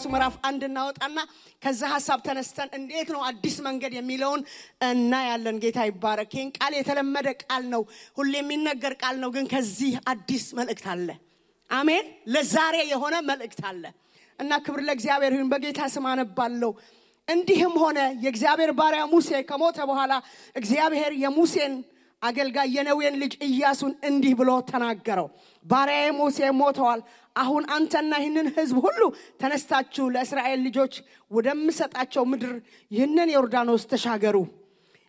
ምዕራፍ 1 እናወጣና ከዛ ሐሳብ ተነስተን እንዴት ነው አዲስ መንገድ የሚለውን እና ያለን ጌታ ይባረክ። ይሄን ቃል የተለመደ ቃል ነው፣ ሁሌ የሚነገር ቃል ነው፣ ግን ከዚህ አዲስ መልእክት አለ። አሜን። ለዛሬ የሆነ መልእክት አለ እና ክብር ለእግዚአብሔር ይሁን። በጌታ ስም አነባለሁ። እንዲህም ሆነ የእግዚአብሔር ባሪያ ሙሴ ከሞተ በኋላ እግዚአብሔር የሙሴን አገልጋይ የነዌን ልጅ ኢያሱን እንዲህ ብሎ ተናገረው። ባሪያዬ ሙሴ ሞተዋል። አሁን አንተና ይህንን ሕዝብ ሁሉ ተነስታችሁ ለእስራኤል ልጆች ወደምሰጣቸው ምድር ይህንን ዮርዳኖስ ተሻገሩ።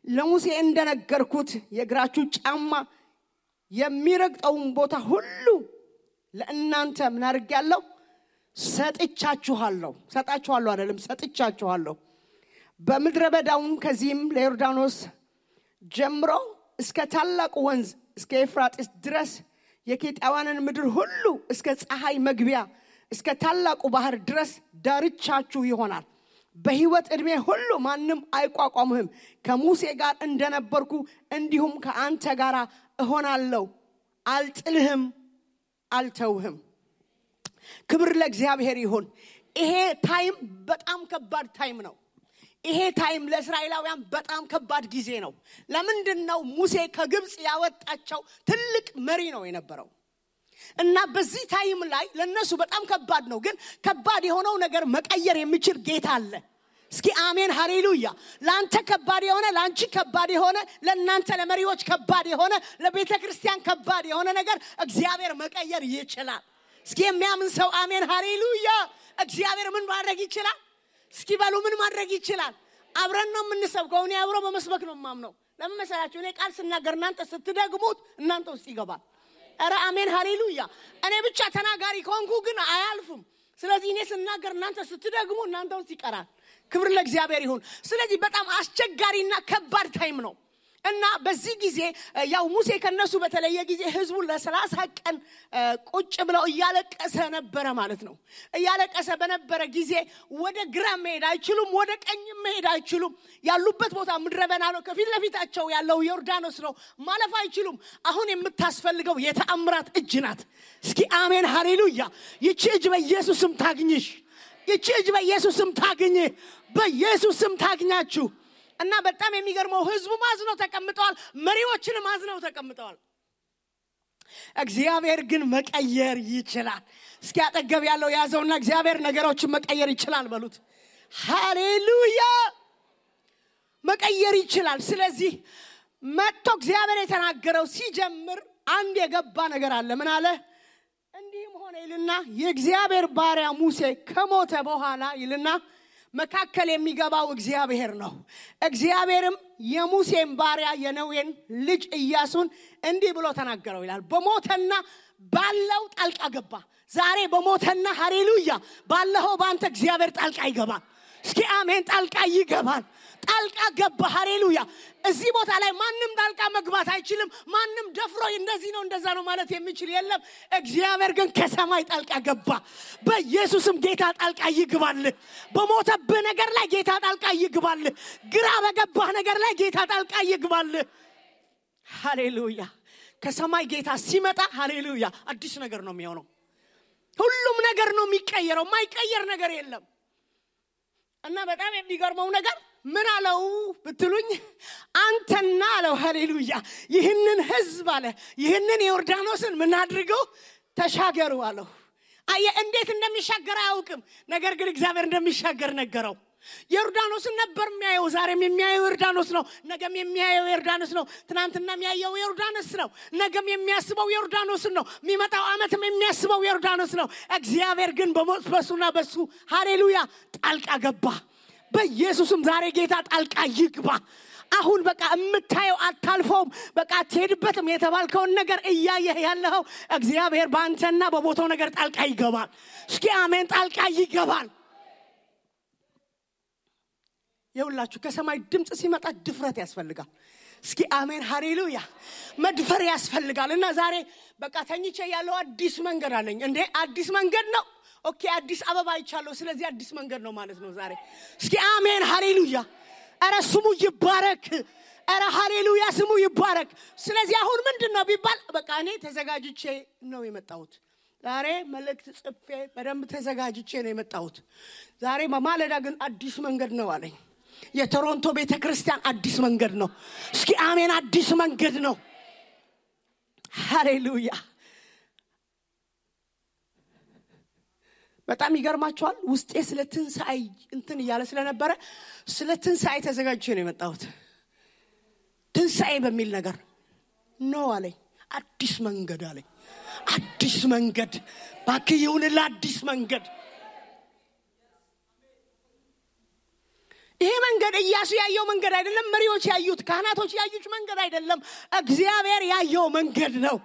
ለሙሴ እንደነገርኩት የእግራችሁ ጫማ የሚረግጠውን ቦታ ሁሉ ለእናንተ ምን አድርጌያለሁ? ሰጥቻችኋለሁ አይደለም፣ ሰጥቻችኋለሁ። በምድረ በዳውም ከዚህም ለዮርዳኖስ ጀምሮ እስከ ታላቁ ወንዝ እስከ ኤፍራጥስ ድረስ የኬጣውያንን ምድር ሁሉ እስከ ፀሐይ መግቢያ እስከ ታላቁ ባህር ድረስ ዳርቻችሁ ይሆናል። በሕይወት ዕድሜ ሁሉ ማንም አይቋቋምህም። ከሙሴ ጋር እንደነበርኩ እንዲሁም ከአንተ ጋር እሆናለሁ። አልጥልህም፣ አልተውህም። ክብር ለእግዚአብሔር ይሁን። ይሄ ታይም በጣም ከባድ ታይም ነው። ይሄ ታይም ለእስራኤላውያን በጣም ከባድ ጊዜ ነው። ለምንድነው? ሙሴ ከግብጽ ያወጣቸው ትልቅ መሪ ነው የነበረው እና በዚህ ታይም ላይ ለነሱ በጣም ከባድ ነው። ግን ከባድ የሆነው ነገር መቀየር የሚችል ጌታ አለ። እስኪ አሜን ሃሌሉያ። ላንተ ከባድ የሆነ ላንቺ ከባድ የሆነ ለናንተ ለመሪዎች ከባድ የሆነ ለቤተ ክርስቲያን ከባድ የሆነ ነገር እግዚአብሔር መቀየር ይችላል። እስኪ የሚያምን ሰው አሜን ሃሌሉያ። እግዚአብሔር ምን ማድረግ ይችላል? እስኪ ባሉ ምን ማድረግ ይችላል? አብረን ነው የምንሰብከው። እኔ አብሮ በመስበክ ነው የማምነው። ለምን መሰላችሁ? እኔ ቃል ስናገር እናንተ ስትደግሙት እናንተ ውስጥ ይገባል። አረ አሜን ሃሌሉያ። እኔ ብቻ ተናጋሪ ከሆንኩ ግን አያልፍም። ስለዚህ እኔ ስናገር እናንተ ስትደግሙ እናንተ ውስጥ ይቀራል። ክብር ለእግዚአብሔር ይሁን። ስለዚህ በጣም አስቸጋሪና ከባድ ታይም ነው እና በዚህ ጊዜ ያው ሙሴ ከነሱ በተለየ ጊዜ ህዝቡ ለ30 ቀን ቁጭ ብለው እያለቀሰ ነበር ማለት ነው። እያለቀሰ በነበረ ጊዜ ወደ ግራ መሄድ አይችሉም፣ ወደ ቀኝ መሄድ አይችሉም። ያሉበት ቦታ ምድረ በዳ ነው። ከፊት ለፊታቸው ያለው ዮርዳኖስ ነው። ማለፍ አይችሉም። አሁን የምታስፈልገው የተአምራት እጅ ናት። እስኪ አሜን ሃሌሉያ። ይቺ እጅ በኢየሱስም ታግኝሽ። ይቺ እጅ በኢየሱስም ታግኝ። በኢየሱስም ታግኛችሁ። እና በጣም የሚገርመው ህዝቡ ማዝነው ተቀምጠዋል፣ መሪዎችንም ማዝነው ተቀምጠዋል። እግዚአብሔር ግን መቀየር ይችላል። እስኪ አጠገብ ያለው ያዘውና እግዚአብሔር ነገሮችን መቀየር ይችላል በሉት። ሃሌሉያ። መቀየር ይችላል። ስለዚህ መጥቶ እግዚአብሔር የተናገረው ሲጀምር አንድ የገባ ነገር አለ። ምን አለ? እንዲህም ሆነ ይልና የእግዚአብሔር ባሪያ ሙሴ ከሞተ በኋላ ይልና መካከል የሚገባው እግዚአብሔር ነው። እግዚአብሔርም የሙሴን ባሪያ የነዌን ልጅ ኢያሱን እንዲህ ብሎ ተናገረው ይላል። በሞተና ባለው ጣልቃ ገባ። ዛሬ በሞተና ሃሌሉያ ባለው ባንተ እግዚአብሔር ጣልቃ ይገባል። እስኪ አሜን። ጣልቃ ይገባል። ጣልቃ ገባ። ሃሌሉያ። እዚህ ቦታ ላይ ማንም ጣልቃ መግባት አይችልም። ማንም ደፍሮ እንደዚህ ነው እንደዛ ነው ማለት የሚችል የለም። እግዚአብሔር ግን ከሰማይ ጣልቃ ገባ። በኢየሱስም ጌታ ጣልቃ ይግባል። በሞተብህ ነገር ላይ ጌታ ጣልቃ ይግባል። ግራ በገባህ ነገር ላይ ጌታ ጣልቃ ይግባል። ሃሌሉያ። ከሰማይ ጌታ ሲመጣ ሃሌሉያ አዲስ ነገር ነው የሚሆነው። ሁሉም ነገር ነው የሚቀየረው። ማይቀየር ነገር የለም። እና በጣም የሚገርመው ነገር ምን አለው ብትሉኝ፣ አንተና አለው ሃሌሉያ ይህንን ህዝብ አለ ይህንን ዮርዳኖስን ምን አድርገው ተሻገሩ አለው። አየ እንዴት እንደሚሻገር አያውቅም። ነገር ግን እግዚአብሔር እንደሚሻገር ነገረው። ዮርዳኖስን ነበር የሚያየው። ዛሬም የሚያየው ዮርዳኖስ ነው። ነገም የሚያየው ዮርዳኖስ ነው። ትናንትና የሚያየው ዮርዳኖስ ነው። ነገም የሚያስበው ዮርዳኖስ ነው። የሚመጣው ዓመትም የሚያስበው ዮርዳኖስ ነው። እግዚአብሔር ግን በሱና በሱ ሃሌሉያ ጣልቃ ገባ። በኢየሱስም ዛሬ ጌታ ጣልቃ ይግባ። አሁን በቃ የምታየው አታልፈውም። በቃ ትሄድበትም የተባልከውን ነገር እያየህ ያለው እግዚአብሔር ባንተና በቦታው ነገር ጣልቃ ይገባል። እስኪ አሜን። ጣልቃ ይገባል። ይኸውላችሁ ከሰማይ ድምጽ ሲመጣ ድፍረት ያስፈልጋል። እስኪ አሜን ሃሌሉያ። መድፈር ያስፈልጋል። እና ዛሬ በቃ ተኝቼ ያለው አዲስ መንገድ አለኝ። እንዴ አዲስ መንገድ ነው? ኦኬ አዲስ አበባ አይቻለሁ። ስለዚህ አዲስ መንገድ ነው ማለት ነው ዛሬ። እስኪ አሜን ሃሌሉያ። አረ ስሙ ይባረክ። አረ ሃሌሉያ ስሙ ይባረክ። ስለዚህ አሁን ምንድነው ቢባል በቃ እኔ ተዘጋጅቼ ነው የመጣሁት። ዛሬ መልእክት ጽፌ በደንብ ተዘጋጅቼ ነው የመጣሁት። ዛሬ በማለዳ ግን አዲስ መንገድ ነው አለኝ። የቶሮንቶ ቤተክርስቲያን አዲስ መንገድ ነው። እስኪ አሜን። አዲስ መንገድ ነው። ሃሌሉያ። በጣም ይገርማችኋል። ውስጤ ስለ ትንሣኤ እንትን እያለ ስለነበረ ስለ ትንሣኤ ተዘጋጅቼ ነው የመጣሁት። ትንሣኤ በሚል ነገር ነው አለኝ። አዲስ መንገድ አለኝ። አዲስ መንገድ ባክህ ይሁንልህ። አዲስ መንገድ። ይሄ መንገድ ኢያሱ ያየው መንገድ አይደለም። መሪዎች ያዩት፣ ካህናቶች ያዩት መንገድ አይደለም። እግዚአብሔር ያየው መንገድ ነው።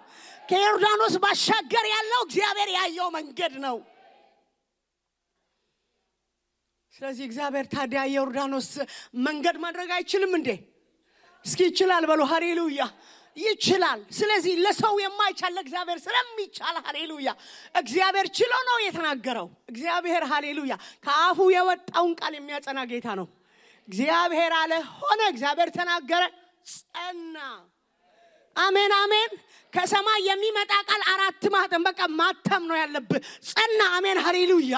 ከዮርዳኖስ ባሻገር ያለው እግዚአብሔር ያየው መንገድ ነው። ስለዚህ እግዚአብሔር ታዲያ ዮርዳኖስ መንገድ ማድረግ አይችልም እንዴ? እስኪ ይችላል በሉ። ሃሌሉያ። ይችላል። ስለዚህ ለሰው የማይቻል እግዚአብሔር ስለሚቻል ሃሌሉያ። እግዚአብሔር ችሎ ነው የተናገረው። እግዚአብሔር ሃሌሉያ ከአፉ የወጣውን ቃል የሚያጸና ጌታ ነው። እግዚአብሔር አለ ሆነ፣ እግዚአብሔር ተናገረ ጸና። አሜን አሜን። ከሰማይ የሚመጣ ቃል አራት ማህተም በቃ ማተም ነው ያለበት። ጸና። አሜን ሃሌሉያ።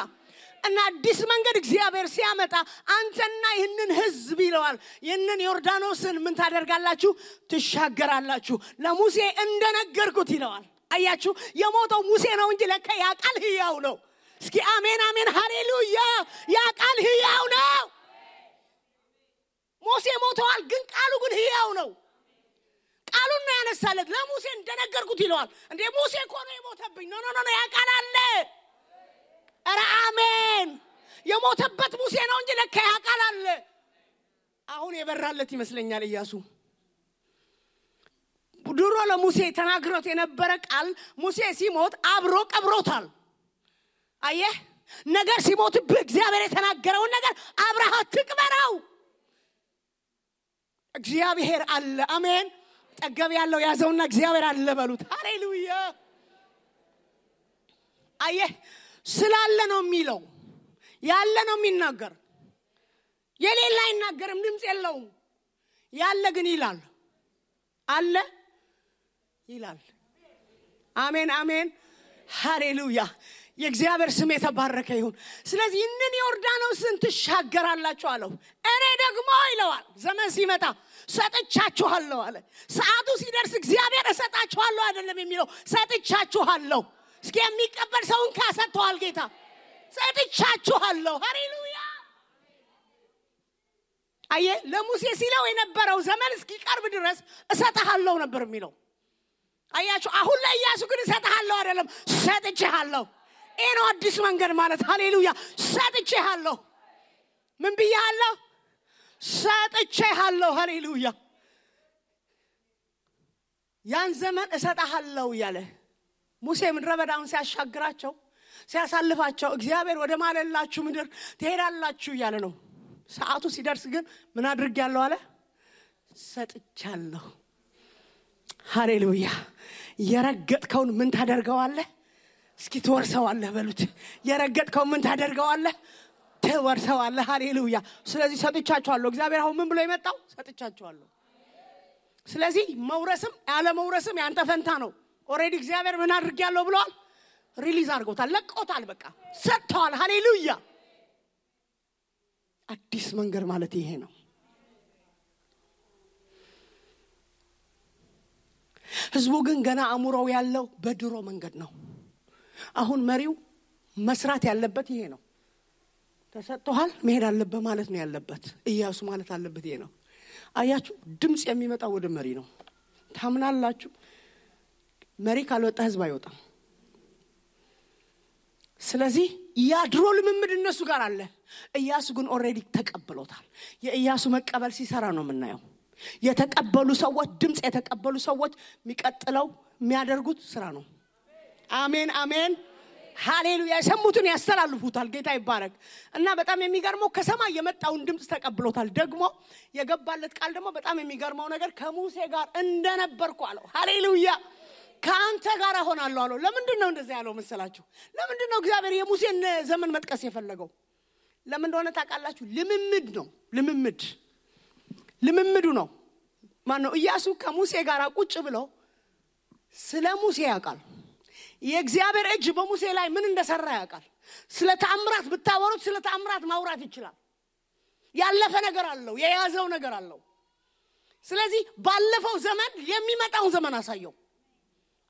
እና አዲስ መንገድ እግዚአብሔር ሲያመጣ አንተና ይህንን ህዝብ ይለዋል፣ ይህንን ዮርዳኖስን ምን ታደርጋላችሁ? ትሻገራላችሁ። ለሙሴ እንደነገርኩት ይለዋል። አያችሁ፣ የሞተው ሙሴ ነው እንጂ ለካ ያ ቃል ሕያው ነው። እስኪ አሜን አሜን ሃሌሉያ። ያ ቃል ሕያው ነው። ሙሴ ሞተዋል፣ ግን ቃሉ ግን ሕያው ነው። ቃሉን ነው ያነሳለት። ለሙሴ እንደነገርኩት ይለዋል። እንዴ ሙሴ እኮ ነው የሞተብኝ። ኖ ያ ቃል አለ። ኧረ አሜን። የሞተበት ሙሴ ነው እንጂ ለካ ያ ቃል አለ። አሁን የበራለት ይመስለኛል ኢያሱ። ድሮ ለሙሴ ተናግሮት የነበረ ቃል ሙሴ ሲሞት አብሮ ቀብሮታል። አየህ፣ ነገር ሲሞትብህ እግዚአብሔር የተናገረውን ነገር አብረህ ትቅበረው። እግዚአብሔር አለ። አሜን። ጠገብ ያለው ያዘውና እግዚአብሔር አለ በሉት። ሃሌሉያ። አየህ፣ ስላለ ነው የሚለው፣ ያለ ነው የሚናገር። የሌላ አይናገርም፣ ድምጽ የለውም። ያለ ግን ይላል፣ አለ ይላል። አሜን አሜን ሃሌሉያ። የእግዚአብሔር ስም የተባረከ ይሁን። ስለዚህ እነን ዮርዳኖስን ትሻገራላችሁ አለው። እኔ ደግሞ ይለዋል ዘመን ሲመጣ ሰጥቻችኋለሁ አለ። ሰዓቱ ሲደርስ እግዚአብሔር እሰጣችኋለሁ አይደለም የሚለው፣ ሰጥቻችኋለሁ። እስኪ የሚቀበል ሰውን ካሰጥቷል ጌታ። ሰጥቻችኋለሁ። ሃሌሉያ። አየ ለሙሴ ሲለው የነበረው ዘመን እስኪቀርብ ድረስ እሰጥሃለሁ ነበር የሚለው። አያችሁ፣ አሁን ላይ ኢያሱ ግን እሰጥሃለሁ አይደለም፣ ሰጥቼሃለሁ። ይሄ ነው አዲስ መንገድ ማለት። ሃሌሉያ። ሰጥቼሃለሁ። ምን ብያለሁ? ሰጥቼሃለሁ። ሃሌሉያ። ያን ዘመን እሰጥሃለሁ ያለ ሙሴ ምድረ በዳውን ሲያሻግራቸው ሲያሳልፋቸው እግዚአብሔር ወደ ማለላችሁ ምድር ትሄዳላችሁ እያለ ነው። ሰዓቱ ሲደርስ ግን ምን አድርጌያለሁ አለ? ሰጥቻለሁ። ሃሌሉያ። የረገጥከውን ምን ታደርገዋለህ? እስኪ ትወርሰዋለህ በሉት። የረገጥከውን ምን ታደርገዋለህ? ትወርሰዋለህ። ሃሌሉያ። ስለዚህ ሰጥቻችኋለሁ። እግዚአብሔር አሁን ምን ብሎ የመጣው? ሰጥቻችኋለሁ። ስለዚህ መውረስም ያለ መውረስም ያንተ ፈንታ ነው። ኦሬዲ እግዚአብሔር ምን አድርጌያለሁ ብሏል? ሪሊዝ አድርጎታል፣ ለቆታል፣ በቃ ሰጥቷል። ሃሌሉያ። አዲስ መንገድ ማለት ይሄ ነው። ህዝቡ ግን ገና አእምሮው ያለው በድሮ መንገድ ነው። አሁን መሪው መስራት ያለበት ይሄ ነው። ተሰጥቷል፣ መሄድ አለበት ማለት ነው ያለበት። ኢያሱ ማለት አለበት ይሄ ነው። አያችሁ፣ ድምጽ የሚመጣው ወደ መሪ ነው። ታምናላችሁ? መሪ ካልወጣ ህዝብ አይወጣም። ስለዚህ ያድሮ ልምምድ እነሱ ጋር አለ። ኢያሱ ግን ኦሬዲ ተቀብሎታል። የኢያሱ መቀበል ሲሰራ ነው የምናየው። የተቀበሉ ሰዎች፣ ድምጽ የተቀበሉ ሰዎች የሚቀጥለው የሚያደርጉት ስራ ነው። አሜን አሜን ሃሌሉያ። የሰሙትን ያስተላልፉታል። ጌታ ይባረክ። እና በጣም የሚገርመው ከሰማይ የመጣውን ድምጽ ተቀብሎታል። ደግሞ የገባለት ቃል ደግሞ በጣም የሚገርመው ነገር ከሙሴ ጋር እንደነበርኩ አለው። ሃሌሉያ። ካንተ ጋር ሆናለሁ አለው። ለምንድን ነው እንደዛ ያለው መሰላችሁ? ለምንድን ነው እግዚአብሔር የሙሴን ዘመን መጥቀስ የፈለገው? ለምን እንደሆነ ታውቃላችሁ? ልምምድ ነው። ልምምዱ ነው። ማን ነው? ኢያሱ ከሙሴ ጋር ቁጭ ብሎ ስለ ሙሴ ያውቃል። የእግዚአብሔር እጅ በሙሴ ላይ ምን እንደሰራ ያውቃል። ስለ ተአምራት ብታወሩት ስለ ተአምራት ማውራት ይችላል። ያለፈ ነገር አለው፣ የያዘው ነገር አለው። ስለዚህ ባለፈው ዘመን የሚመጣውን ዘመን አሳየው።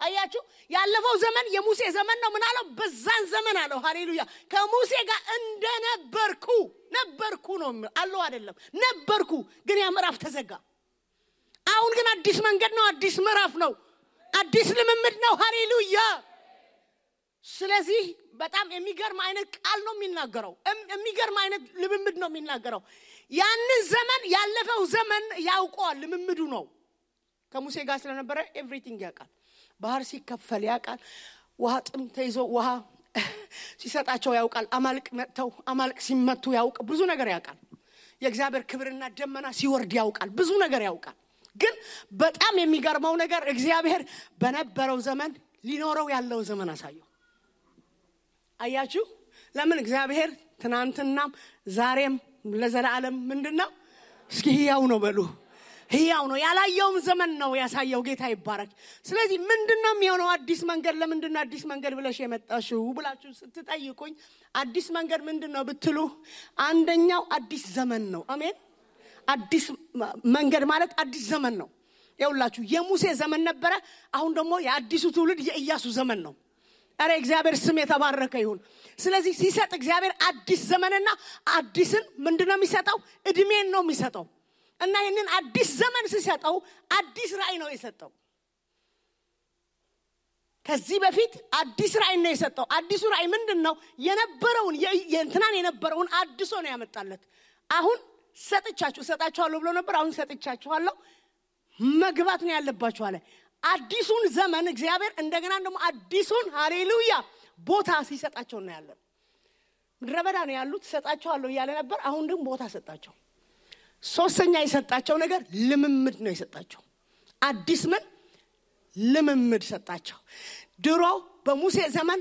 አያችሁ ያለፈው ዘመን የሙሴ ዘመን ነው። ምን አለው? በዛን ዘመን አለው ሃሌሉያ ከሙሴ ጋር እንደነበርኩ ነው አለው አይደለም ነበርኩ። ግን ያ ምዕራፍ ተዘጋ። አሁን ግን አዲስ መንገድ ነው፣ አዲስ ምዕራፍ ነው፣ አዲስ ልምምድ ነው። ሃሌሉያ። ስለዚህ በጣም የሚገርም አይነት ቃል ነው የሚናገረው፣ የሚገርም አይነት ልምምድ ነው የሚናገረው። ያንን ዘመን ያለፈው ዘመን ያውቀዋል፣ ልምምዱ ነው። ከሙሴ ጋር ስለነበረ ኤቭሪቲንግ ያውቃል። ባህር ሲከፈል ያውቃል። ውሃ ጥም ተይዞ ውሃ ሲሰጣቸው ያውቃል። አማልቅ መጥተው አማልቅ ሲመቱ ያውቃል። ብዙ ነገር ያውቃል። የእግዚአብሔር ክብርና ደመና ሲወርድ ያውቃል። ብዙ ነገር ያውቃል። ግን በጣም የሚገርመው ነገር እግዚአብሔር በነበረው ዘመን ሊኖረው ያለው ዘመን አሳየው። አያችሁ ለምን? እግዚአብሔር ትናንትናም ዛሬም ለዘላለም ምንድነው? እስኪ ሕያው ነው በሉ። ሕያው ነው። ያላየውም ዘመን ነው ያሳየው። ጌታ ይባረክ። ስለዚህ ምንድነው የሚሆነው? አዲስ መንገድ ለምንድነው አዲስ መንገድ ብለሽ የመጣሽው ብላችሁ ስትጠይቁኝ አዲስ መንገድ ምንድነው ብትሉ አንደኛው አዲስ ዘመን ነው። አሜን። አዲስ መንገድ ማለት አዲስ ዘመን ነው። ይኸውላችሁ የሙሴ ዘመን ነበረ። አሁን ደግሞ የአዲሱ ትውልድ የኢያሱ ዘመን ነው። አረ እግዚአብሔር ስም የተባረከ ይሁን። ስለዚህ ሲሰጥ እግዚአብሔር አዲስ ዘመንና አዲስን ምንድነው የሚሰጠው? እድሜን ነው የሚሰጠው። እና ይሄንን አዲስ ዘመን ሲሰጠው አዲስ ራእይ ነው የሰጠው። ከዚህ በፊት አዲስ ራእይ ነው የሰጠው። አዲሱ ራእይ ምንድነው? የነበረውን የእንትናን የነበረውን አድሶ ነው ያመጣለት። አሁን ሰጣችኋለሁ ብሎ ነበር። አሁን ሰጥቻችኋለሁ መግባት ነው ያለባችሁ አለ። አዲሱን ዘመን እግዚአብሔር እንደገና ደግሞ አዲሱን ሃሌሉያ ቦታ ሲሰጣቸው ነው ያለው። ምድረ በዳ ነው ያሉት። ሰጣችኋለሁ እያለ ነበር። አሁን ደግሞ ቦታ ሰጣቸው። ሶስተኛ የሰጣቸው ነገር ልምምድ ነው የሰጣቸው። አዲስ ምን ልምምድ ሰጣቸው። ድሮ በሙሴ ዘመን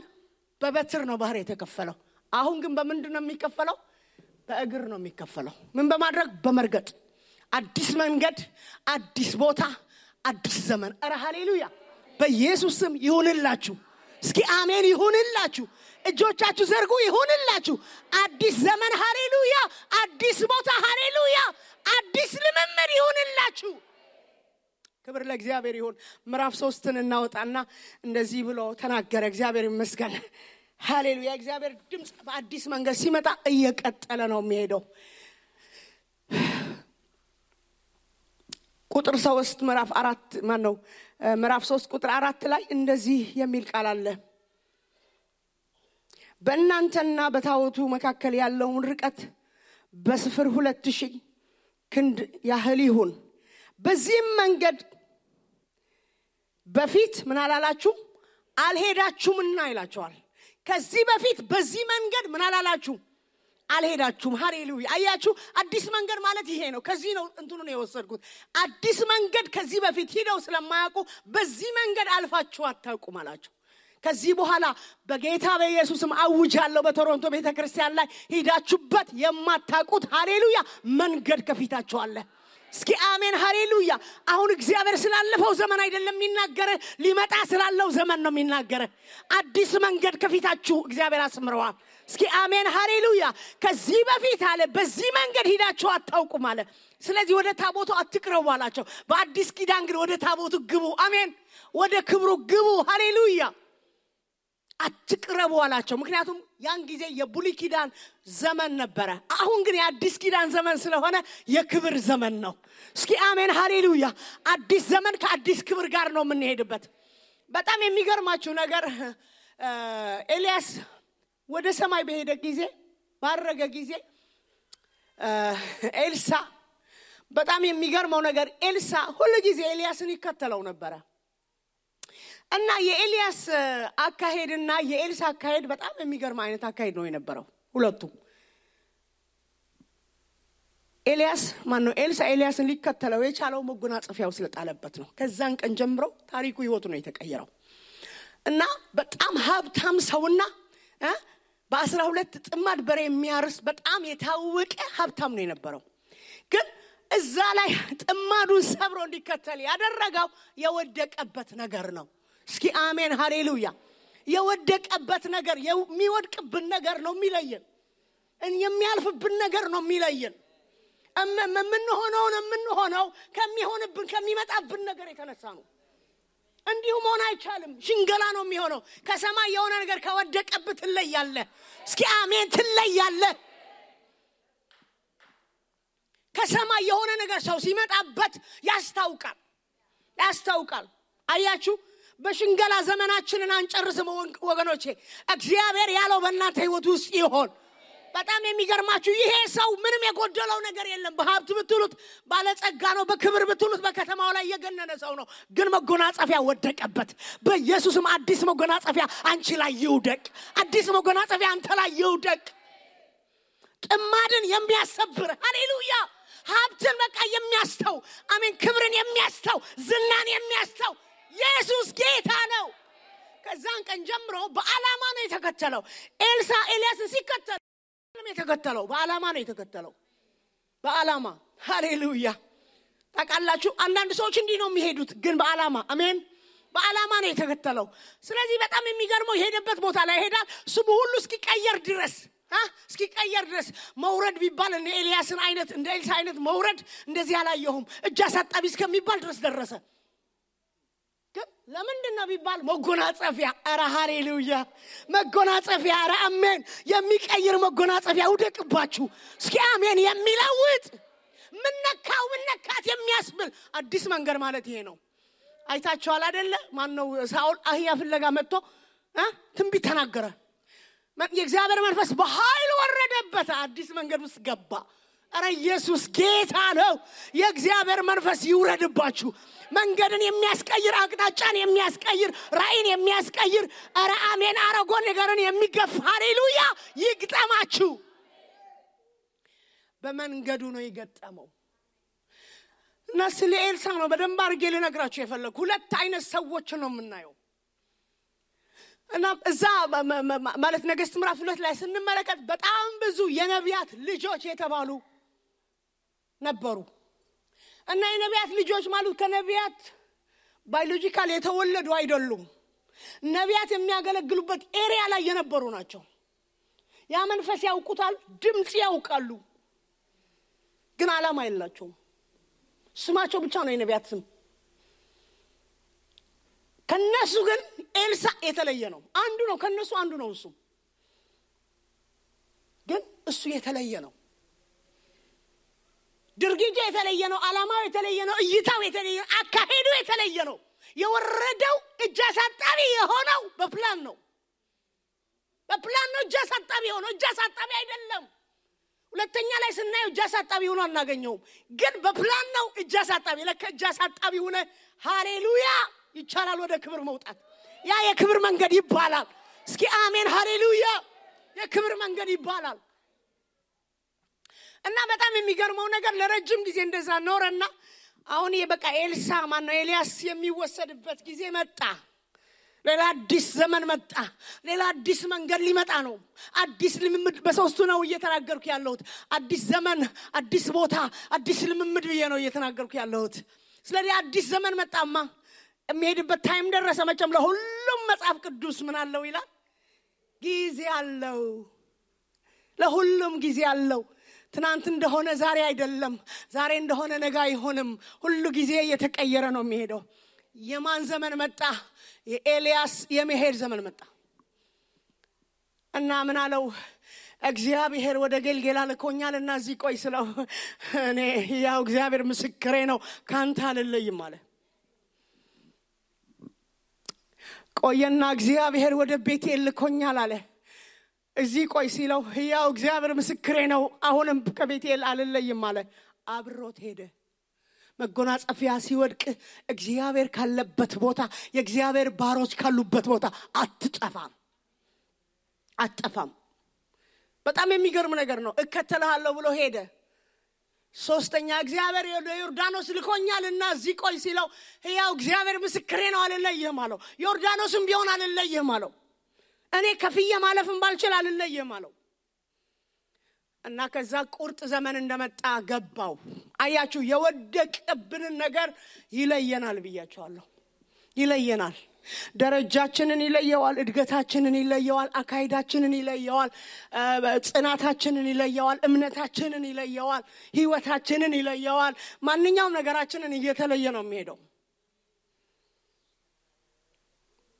በበትር ነው ባህር የተከፈለው። አሁን ግን በምንድን ነው የሚከፈለው? በእግር ነው የሚከፈለው። ምን በማድረግ? በመርገጥ። አዲስ መንገድ፣ አዲስ ቦታ፣ አዲስ ዘመን። አረ ሃሌሉያ በኢየሱስ ስም ይሁንላችሁ። እስኪ አሜን ይሁንላችሁ። እጆቻችሁ ዘርጉ። ይሁንላችሁ። አዲስ ዘመን ሃሌሉያ፣ አዲስ ቦታ ሃሌሉያ፣ አዲስ ልምምድ ይሁንላችሁ። ክብር ለእግዚአብሔር ይሁን። ምዕራፍ 3ን እናወጣና እንደዚህ ብሎ ተናገረ። እግዚአብሔር ይመስገን። ሃሌሉያ። እግዚአብሔር ድምጽ በአዲስ መንገድ ሲመጣ እየቀጠለ ነው የሚሄደው። ቁጥር 3 ምዕራፍ 3 ቁጥር 4 ላይ እንደዚህ የሚል ቃል አለ። በእናንተና በታቦቱ መካከል ያለውን ርቀት በስፍር 2000 ክንድ ያህል ይሁን። በዚህም መንገድ በፊት ምን አላላችሁ? አልሄዳችሁምና ይላችኋል። ከዚህ በፊት በዚህ መንገድ ምን አላላችሁ? አልሄዳችሁም። ሃሌሉያ። አያችሁ አዲስ መንገድ ማለት ይሄ ነው። ከዚህ ነው እንትኑን የወሰድኩት። አዲስ መንገድ ከዚህ በፊት ሄደው ስለማያውቁ በዚህ መንገድ አልፋችሁ አታውቁም አላችሁ። ከዚህ በኋላ በጌታ በኢየሱስም አውጃለሁ በቶሮንቶ ቤተክርስቲያን ላይ ሄዳችሁበት የማታውቁት ሃሌሉያ መንገድ ከፊታችሁ አለ። እስኪ አሜን ሃሌሉያ። አሁን እግዚአብሔር ስላለፈው ዘመን አይደለም የሚናገረ፣ ሊመጣ ስላለው ዘመን ነው የሚናገረ። አዲስ መንገድ ከፊታችሁ እግዚአብሔር አስምረዋል። እስኪ አሜን ሃሌሉያ። ከዚህ በፊት አለ በዚህ መንገድ ሄዳችሁ አታውቁም አለ። ስለዚህ ወደ ታቦቱ አትቅረቡ አላቸው። በአዲስ ኪዳን ግን ወደ ታቦቱ ግቡ። አሜን። ወደ ክብሩ ግቡ። ሃሌሉያ። አትቅረቡ አላቸው። ምክንያቱም ያን ጊዜ የብሉይ ኪዳን ዘመን ነበረ። አሁን ግን የአዲስ ኪዳን ዘመን ስለሆነ የክብር ዘመን ነው። እስኪ አሜን ሃሌሉያ። አዲስ ዘመን ከአዲስ ክብር ጋር ነው የምንሄድበት። በጣም የሚገርማችሁ ነገር ኤልያስ ወደ ሰማይ በሄደ ጊዜ ባረገ ጊዜ ኤልሳ በጣም የሚገርመው ነገር ኤልሳ ሁሉ ጊዜ ኤልያስን ይከተለው ነበር። እና የኤልያስ አካሄድና የኤልሳ አካሄድ በጣም የሚገርም አይነት አካሄድ ነው የነበረው ሁለቱም። ኤልሳ ኤልያስን ሊከተለው የቻለው መጎናጸፊያው ስለጣለበት ነው። ከዛን ቀን ጀምሮ ታሪኩ ህይወቱ ነው የተቀየረው። እና በጣም ሀብታም ሰውና በ12 ጥማድ በሬ የሚያርስ በጣም የታወቀ ሀብታም ነው የነበረው። ግን እዛ ላይ ጥማዱን ሰብሮ እንዲከተል ያደረገው የወደቀበት ነገር ነው። እስኪ አሜን ሃሌሉያ። የወደቀበት ነገር የሚወድቅብን ነገር ነው የሚለየን የሚያልፍብን ነገር ነው የሚለየን የምንሆነው ከሚሆንብን ከሚመጣብን ነገር የተነሳ ነው እንዲሁ መሆን አይቻልም ሽንገላ ነው የሚሆነው ከሰማይ የሆነ ነገር ከወደቀበት ትለያለ እስኪ አሜን ትለያለ ከሰማይ የሆነ ነገር ሰው ሲመጣበት ያስታውቃል አያችሁ በሽንገላ ዘመናችንን አንጨርስም ወገኖቼ እግዚአብሔር ያለው በእናንተ ህይወት ውስጥ ይሆን በጣም የሚገርማችሁ ይሄ ሰው ምንም የጎደለው ነገር የለም በሀብት ብትሉት ባለጸጋ ነው በክብር ብትሉት በከተማው ላይ የገነነ ሰው ነው ግን መጎናጸፊያ ወደቀበት በኢየሱስም አዲስ መጎናጸፊያ አንቺ ላይ ይውደቅ አዲስ መጎናጸፊያ አንተ ላይ ይውደቅ ጥማድን የሚያሰብር ሃሌሉያ ሀብትን በቃ የሚያስተው አሜን ክብርን የሚያስተው ዝናን የሚያስተው ኢየሱስ ጌታ ነው ከዛን ቀን ጀምሮ በአላማ ነው የተከተለው ኤልሳ ኤልያስን ሲከተል የተከተለው በአላማ ነው የተከተለው በአላማ ሃሌሉያ ታውቃላችሁ አንዳንድ ሰዎች እንዲህ ነው የሚሄዱት ግን በአላማ አሜን በአላማ ነው የተከተለው ስለዚህ በጣም የሚገርመው የሄደበት ቦታ ላይ ሄዳል ስሙ ሁሉ እስኪቀየር ድረስ መውረድ ቢባል እንደ ኤልያስን አይነት እንደ ኤልሳ አይነት መውረድ እንደዚህ አላየሁም እጅ አሳጣቢ እስከሚባል ድረስ ደረሰ ለምንድነው ቢባል መጎናጸፊያ አረ ሃሌሉያ መጎናጸፊያ አረ አሜን የሚቀይር መጎናጸፊያ ውደቅባችሁ እስኪ አሜን የሚለውጥ ምንነካት የሚያስብል አዲስ መንገድ ማለት ይሄ ነው አይታችኋል አይደለ ማን ነው ሳኦል አህያ ፍለጋ መጥቶ ትንቢት ተናገረ የእግዚአብሔር መንፈስ በኃይል ወረደበት አዲስ መንገድ ውስጥ ገባ አረ ኢየሱስ ጌታ ነው የእግዚአብሔር መንፈስ ይውረድባችሁ መንገድን የሚያስቀይር አቅጣጫን የሚያስቀይር ራእይን የሚያስቀይር አረ አሜን አረጎ ነገርን የሚገፍ ሃሌሉያ ይግጠማችሁ በመንገዱ ነው ይገጠመው እና ስለ ኤልሳ ነው በደንብ አድርጌ ልነግራችሁ የፈለኩ ሁለት አይነት ሰዎች ነው የምናየው እና እዛ ማለት ነገሥት ምዕራፍ 2 ላይ ስንመለከት በጣም ብዙ የነቢያት ልጆች የተባሉ ነበሩ እና የነቢያት ልጆች ማለት ከነቢያት ባዮሎጂካል የተወለዱ አይደሉም ነቢያት የሚያገለግሉበት ኤሪያ ላይ የነበሩ ናቸው ያ መንፈስ ያውቁታል ድምጽ ያውቃሉ ግን ዓላማ የላቸውም ስማቸው ብቻ ነው የነቢያት ስም ከነሱ ግን ኤልሳ የተለየ ነው አንዱ ነው ከነሱ አንዱ ነው እሱ ግን እሱ የተለየ ነው ድርጊቱ የተለየ ነው ዓላማው የተለየ ነው እይታው የተለየ ነው አካሄዱ የተለየ ነው የወረደው እጅ አሳጣቢ የሆነው በፕላን ነው እጅ አሳጣቢ የሆነው እጅ አሳጣቢ አይደለም ሁለተኛ ላይ ስናየው እጅ አሳጣቢ ሆኖ አናገኘውም ግን በፕላን ነው እጅ አሳጣቢ ለካ እጅ አሳጣቢ ሆነ ሃሌሉያ ይቻላል ወደ ክብር መውጣት ያ የክብር መንገድ ይባላል እስኪ አሜን ሃሌሉያ የክብር መንገድ ይባላል እና በጣም የሚገርመው ነገር ለረጅም ጊዜ እንደዛ ኖረና አሁን የበቃ ኤልሳ ማነው ኤልያስ የሚወሰድበት ጊዜ መጣ ሌላ አዲስ ዘመን መጣ ሌላ አዲስ መንገድ ሊመጣ ነው አዲስ ልምምድ በሶስቱ ነው እየተናገርኩ ያለሁት አዲስ ዘመን አዲስ ቦታ አዲስ ልምምድ ብዬ ነው እየተናገርኩ ያለሁት ስለዚህ አዲስ ዘመን መጣማ የሚሄድበት ታይም ደረሰ መቼም ለሁሉም መጽሐፍ ቅዱስ ምን አለው ይላል ጊዜ አለው ለሁሉም ጊዜ አለው ትናንት እንደሆነ ዛሬ አይደለም ዛሬ እንደሆነ ነገ አይሆንም ሁሉ ጊዜ እየተቀየረ ነው የሚሄደው የማን ዘመን መጣ የኤልያስ የመሄድ ዘመን መጣ እና ምን አለው እግዚአብሔር ወደ ገልጌላ ልኮኛልና እዚህ ቆይ ስለው እኔ ያው እግዚአብሔር ምስክሬ ነው ካንተ አልለይም አለ ቆየና እግዚአብሔር ወደ ቤቴል ልኮኛል አለ እዚህ ቆይ ሲለው ያው እግዚአብሔር ምስክሬ ነው አሁንም ከቤቴል አልለይም አለ አብሮት ሄደ መጎናጸፊያ ሲወድቅ እግዚአብሔር ካለበት ቦታ የእግዚአብሔር ባሮች ካሉበት ቦታ አትጠፋም በጣም የሚገርም ነገር ነው እከተልሃለሁ ብሎ ሄደ ሶስተኛ እግዚአብሔር ዮርዳኖስ ልኮኛልና እዚህ ቆይ ሲለው ያው እግዚአብሔር ምስክሬ ነው አልለይም አለው ዮርዳኖስም ቢሆን አልለይም አለው እኔ ከፍዬ ማለፍም ባልችል አልለይም አለው እና ከዛ ቁርጥ ዘመን እንደመጣ ገባው አያችሁ የወደቀብን ነገር ይለየናል ብያችኋለሁ ይለየናል ደረጃችንን ይለየዋል፣ እድገታችንን ይለየዋል፣ አካይዳችንን ይለየዋል፣ ጽናታችንን ይለየዋል፣ እምነታችንን ይለየዋል፣ ህይወታችንን ይለየዋል። ማንኛውም ነገራችንን እየተለየ ነው የሚሄደው።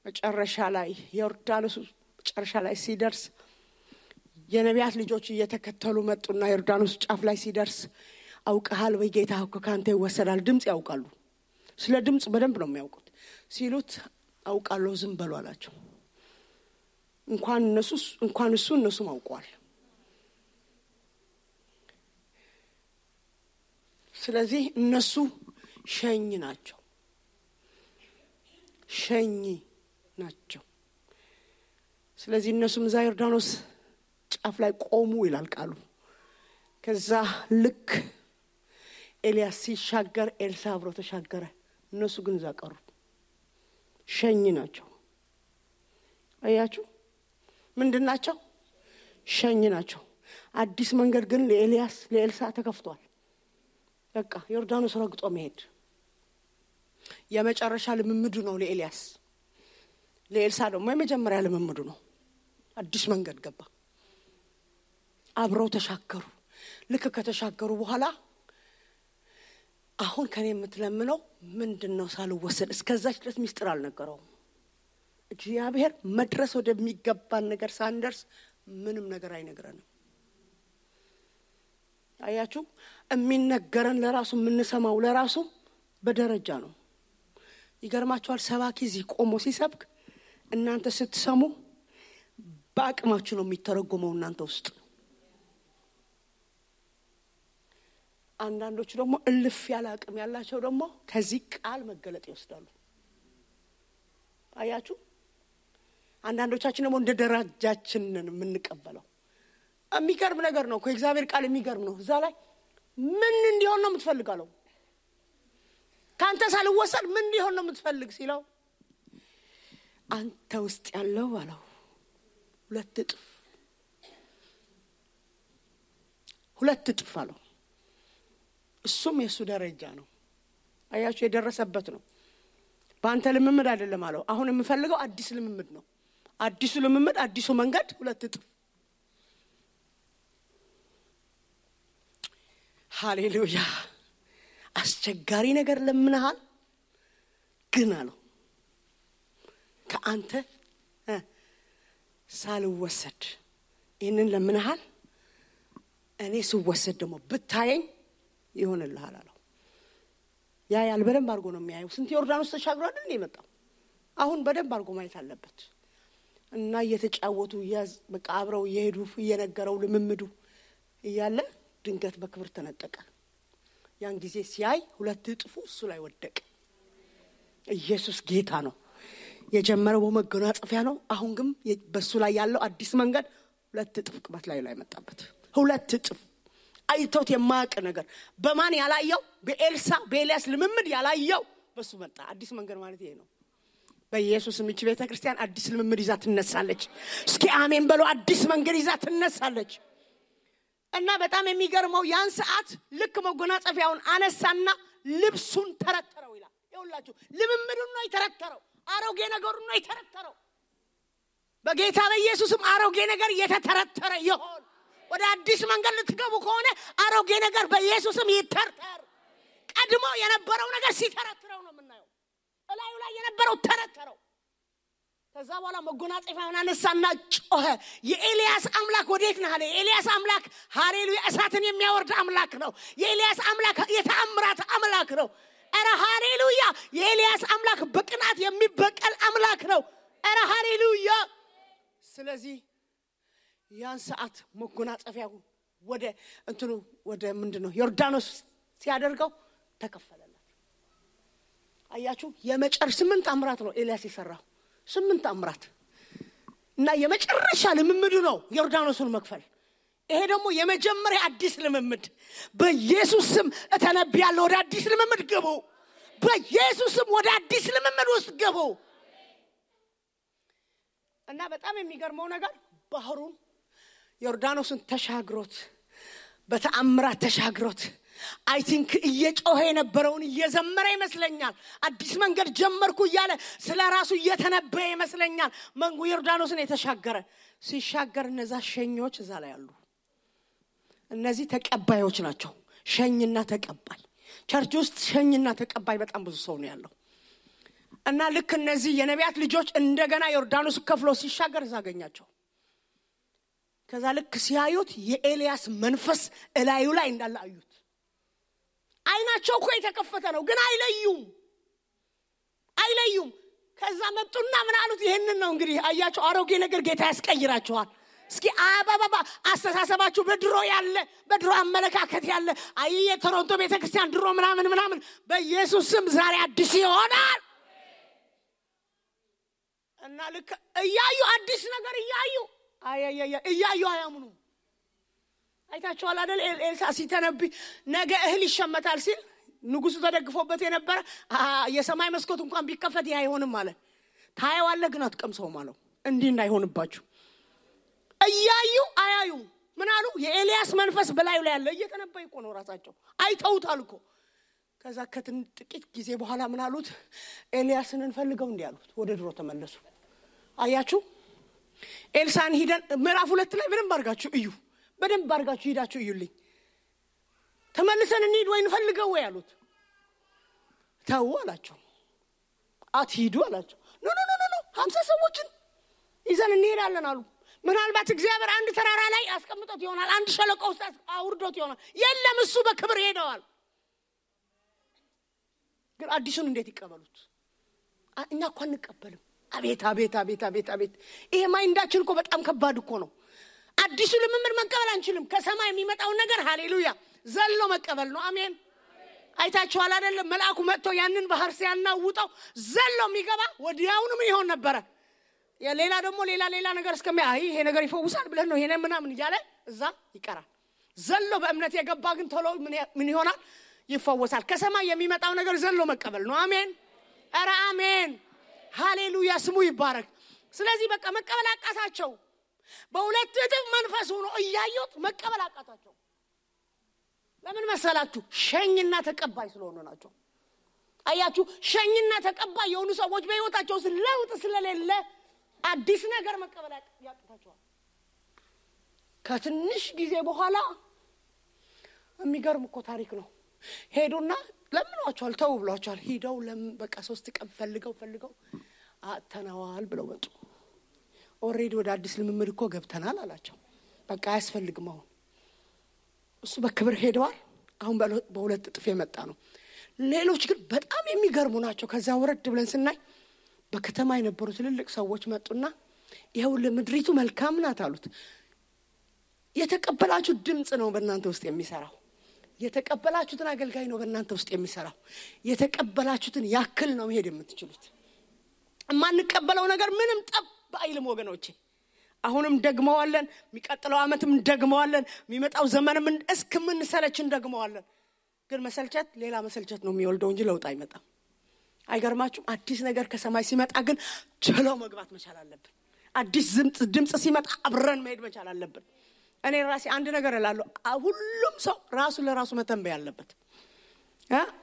መጨረሻ ላይ ዮርዳኖስ መጨረሻ ላይ ሲደርስ የነቢያት ልጆች እየተከተሉ መጡና ዮርዳኖስ ጫፍ ላይ ሲደርስ አውቀሃል ወይ ጌታ እኮ ካንተ ይወሰዳል። ድምጽ ያውቃሉ። ስለ ድምጽ በደንብ ነው የሚያውቁት። ሲሉት አውቃለሁ ዝም በሉ አላቸው። እንኳን እነሱም አውቀዋል። ስለዚህ እነሱ ሸኝ ናቸው። ስለዚህ እነሱም እዛ ዮርዳኖስ ጫፍ ላይ ቆሙ ይላል ቃሉ። ከዛ ልክ ኤልያስ ሲሻገር ኤልሳ አብሮ ተሻገረ። እነሱ ግን እዛ ቀሩ። ሸኝ ናቸው። አያችሁ ምንድናቸው? ሸኝ ናቸው። አዲስ መንገድ ግን ለኤልሳ ተከፍቷል። በቃ ዮርዳኖስ ረግጦ መሄድ የመጨረሻ ልምምዱ ነው ለኤልያስ። ለኤልሳ ደግሞ የመጀመሪያ ልምምዱ ነው። አዲስ መንገድ ገባ። አብረው ተሻገሩ። ልክ ከተሻገሩ በኋላ አሁን ከኔ የምትለምነው ምንድነው ሳልወሰድ? እስከዛች ድረስ ሚስጥር አልነገረውም። እግዚአብሔር መድረስ ወደሚገባን ነገር ሳንደርስ ምንም ነገር አይነግረንም። አያችሁ የሚነገረን ለራሱ የምንሰማው ለራሱ በደረጃ ነው። ይገርማችኋል። ሰባኪ እዚህ ቆሞ ሲሰብክ እናንተ ስትሰሙ በአቅማችሁ ነው የሚተረጎመው እናንተ ውስጥ። አንዳንዶቹ ደግሞ እልፍ ያለ አቅም ያላቸው ደግሞ ከዚህ ቃል መገለጥ ይወስዳሉ። አያችሁ አንዳንዶቻችን ደግሞ እንደ ደረጃችን የምንቀበለው። የሚገርም ነገር ነው እኮ እግዚአብሔር ቃል የሚገርም ነው። እዛ ላይ ምን እንዲሆን ነው የምትፈልጋለው? ካንተ ሳልወሰድ ምን እንዲሆን ነው የምትፈልግ ሲለው አንተ ውስጥ ያለው አለው ሁለት እጥፍ አለው። እሱም የሱ ደረጃ ነው። አያችሁ የደረሰበት ነው። በአንተ ልምምድ አይደለም አለው። አሁን የምፈልገው አዲስ ልምምድ ነው። አዲሱ ልምምድ አዲሱ መንገድ ሁለት እጥፍ። ሃሌሉያ። አስቸጋሪ ነገር ለምንሃል ግን አለው ከአንተ ሳልወሰድ ይሄንን ለምንሃል እኔ ስወሰድ ደግሞ ብታየኝ ይሆንልሃል አለው። ያ በደንብ አድርጎ ነው የሚያየው። ስንት ዮርዳኖስ ተሻግሮ አይደል የመጣው? አሁን በደንብ አድርጎ ማየት አለበት። እና እየተጫወቱ በቃ አብረው እየሄዱ እየነገረው ልምምዱ እያለ ድንገት በክብር ተነጠቀ። ያን ጊዜ ሲያይ ሁለት እጥፉ እሱ ላይ ወደቀ። ኢየሱስ ጌታ ነው። የጀመረው በመጎናጸፊያ ነው። አሁን ግን በሱ ላይ ያለው አዲስ መንገድ ሁለት እጥፍ ቅባት ላይ መጣበት። ሁለት እጥፍ አይቶት የማያውቅ ነገር በማን ያላየው? በኤልያስ ልምምድ ያላየው በሱ መጣ። አዲስ መንገድ ማለት ይሄ ነው። በኢየሱስ ምች ቤተክርስቲያን አዲስ ልምምድ ይዛ ትነሳለች። እስኪ አሜን በሉ። አዲስ መንገድ ይዛ ትነሳለች። እና በጣም የሚገርመው ያን ሰዓት ልክ መጎናጸፊያውን አነሳና ልብሱን ተረተረው ይላል። ይኸውላችሁ ልምምዱን ነው የተረተረው። አሮጌ ነገሩን ነው የተረተረው። በጌታ በኢየሱስም አሮጌ ነገር የተተረተረ ይሁን። ወደ አዲስ መንገድ ልትገቡ ከሆነ አሮጌ ነገር በኢየሱስም ይተርተር። ቀድሞ የነበረው ነገር ሲተረተረው ነው የምናየው። እላዩ ላይ የነበረው ተረተረው። ከዛ በኋላ መጎናጸፊያውን አነሳና ጮኸ። የኤልያስ አምላክ ወዴት ነህ አለ። የኤልያስ አምላክ ሃሌሉያ እሳትን የሚያወርድ አምላክ ነው። የኤልያስ አምላክ የተአምራት አምላክ ነው። አረ ሃሌሉያ። የኤልያስ አምላክ በቅናት የሚበቀል አምላክ ነው። አረ ሃሌሉያ። ስለዚህ ያን ሰዓት መጎናጸፊያው ወደ ምንድነው ዮርዳኖስ ሲያደርገው ተከፈለለት። አያችሁ የመጨረሻ 8 አምራት ነው ኤልያስ የሰራው። 8 አምራት እና የመጨረሻ ልምምዱ ነው ዮርዳኖስን መክፈል። ይሄ ደግሞ የመጀመሪያ አዲስ ልምምድ። በኢየሱስ ስም እተነብያለሁ ወደ አዲስ ልምምድ ግቡ። በኢየሱስ ስም ወደ አዲስ ልምምድ ውስጥ ግቡ። እና በጣም የሚገርመው ነገር ባህሩን ዮርዳኖስን ተሻግሮት በተአምራት ተሻግሮት አይ ቲንክ እየጮኸ የነበረውን እየዘመረ ይመስለኛል። አዲስ መንገድ ጀመርኩ እያለ ስለራሱ እየተነበየ ይመስለኛል። መንጉ ዮርዳኖስን የተሻገረ ሲሻገር እነዛ ሸኞች እዛ ላይ አሉ። እነዚህ ተቀባዮች ናቸው። ሸኝና ተቀባይ። ቸርች ውስጥ ሸኝና ተቀባይ በጣም ብዙ ሰው ነው ያለው። እና ልክ እነዚህ የነቢያት ልጆች እንደገና ዮርዳኖስ ከፍሎ ሲሻገር ያገኛቸው። ከዛ ልክ ሲያዩት የኤልያስ መንፈስ እላዩ ላይ እንዳለ አዩት። አይናቸው እኮ የተከፈተ ነው ግን አይለዩም። ከዛ መጡና ምን አሉት? ይሄንን ነው እንግዲህ አያቸው። አሮጌ ነገር ጌታ ያስቀይራቸዋል። እስኪ አባባባ አስተሳሰባችሁ በድሮ አመለካከት ያለ የቶሮንቶ ቤተክርስቲያን ድሮ ምናምን በኢየሱስ ስም ዛሬ አዲስ ይሆናል። እና ልክ እያዩ አዲስ ነገር እያዩ አያምኑ። አይታችኋል አይደል? ኤልሳ ሲተነብይ ነገ እህል ይሸመታል ሲል ንጉሱ ተደግፎበት የነበረ የሰማይ መስኮት እንኳን ቢከፈት ይሄ አይሆንም ማለት ታየዋለህ ግን አትቀምሰው ማለት እንዲህ እንዳይሆንባችሁ። እያዩ አያዩ ምን አሉ? የኤልያስ መንፈስ በላዩ ላይ ያለ እየተነበየ እኮ ነው። ራሳቸው አይተውታል እኮ። ከዛ ጥቂት ጊዜ በኋላ ምን አሉት? ኤልያስን እንፈልገው እንዴ አሉት። ወደ ድሮ ተመለሱ። አያችሁ? ኤልሳን ሄደን ምዕራፍ 2 ላይ በደንብ አድርጋችሁ ሄዳችሁ እዩልኝ። ተመልሰን እንሂድ ወይ እንፈልገው ወይ አሉት። ተው አላቸው። አትሂዱ አላቸው። ኖ 50 ሰዎችን ይዘን እንሄዳለን አሉ። ምናልባት እግዚአብሔር አንድ ተራራ ላይ አስቀምጦት ይሆናል፣ አንድ ሸለቆ ውስጥ አውርዶት ይሆናል። የለም እሱ በክብር ሄደዋል። ግን አዲሱን እንዴት ይቀበሉት? እኛ እኮ አንቀበልም። አቤት ይሄ ማይንዳችን እኮ በጣም ከባድ እኮ ነው። አዲሱ ልምምድ መቀበል አንችልም። ከሰማይ የሚመጣው ነገር ሃሌሉያ ዘሎ መቀበል ነው። አሜን። አይታችኋል አይደል? መልአኩ መጥቶ ያንን ባህር ሲያናውጣው ዘሎ የሚገባ ወዲያውኑ ምን ይሆን ነበር? ሌላ ደግሞ ሌላ ነገር ይሄ ነገር ይፈውሳል ብለን ነው ይሄን ምናምን እያለ እዛ ይቀራል። ዘሎ በእምነት የገባ ግን ቶሎ ምን ይሆናል? ይፈወሳል። ከሰማይ የሚመጣው ነገር ዘሎ መቀበል ነው። አሜን። ኧረ አሜን ሃሌሉያ ስሙ ይባረክ። ስለዚህ በቃ መቀበል አቃታቸው። በሁለት እጥፍ መንፈስ ሆኖ እያዩት መቀበል አቃታቸው። ለምን መሰላችሁ? ሸኝና ተቀባይ ስለሆኑ ናቸው። አያችሁ? ሸኝና ተቀባይ የሆኑ ሰዎች በህይወታቸው ለውጥ ስለሌለ አዲስ ነገር መቀበል ያቃታቸዋል። ከትንሽ ጊዜ በኋላ የሚገርም እኮ ታሪክ ነው። ሄዱና ለምኗቸዋል፣ ተው ብሏቸዋል። ሄደው በቃ 3 ቀን ፈልገው አተናዋል ብለው መጡ። ኦሬዲ ወደ አዲስ ልምምድ እኮ ገብተናል አላቸው። በቃ አያስፈልግም። አሁን እሱ በክብር ሄደዋል። አሁን በሁለት እጥፍ የመጣ ነው። ሌሎች ግን በጣም የሚገርሙ ናቸው። ከዛ ወረድ ብለን ስናይ በከተማ የነበሩ ትልልቅ ሰዎች መጡና ይሄው ለምድሪቱ መልካም ናት አሉት። የተቀበላችሁ ድምጽ ነው በእናንተ ውስጥ የሚሰራው። የተቀበላችሁትን አገልጋይ ነው በእናንተ ውስጥ የሚሰራው። የተቀበላችሁትን ያክል ነው መሄድ የምትችሉት። ማንቀበለው ነገር ምንም ጠብ አይልም ወገኖቼ። አሁንም ደግመዋለን፣ የሚቀጥለው አመትም ደግመዋለን፣ የሚመጣው ዘመንም እስከምንሰለችን ደግመዋለን። ግን መሰልቸት ሌላ መሰልቸት ነው የሚወልደው እንጂ ለውጥ አይመጣም። አይገርማችሁም? አዲስ ነገር ከሰማይ ሲመጣ ግን ቸሎ መግባት መቻል አለብን። አዲስ ድምጽ ሲመጣ አብረን መሄድ መቻል አለብን። እኔ ራሴ አንድ ነገር እላለሁ፣ ሁሉም ሰው ራሱ ለራሱ መተንበይ አለበት።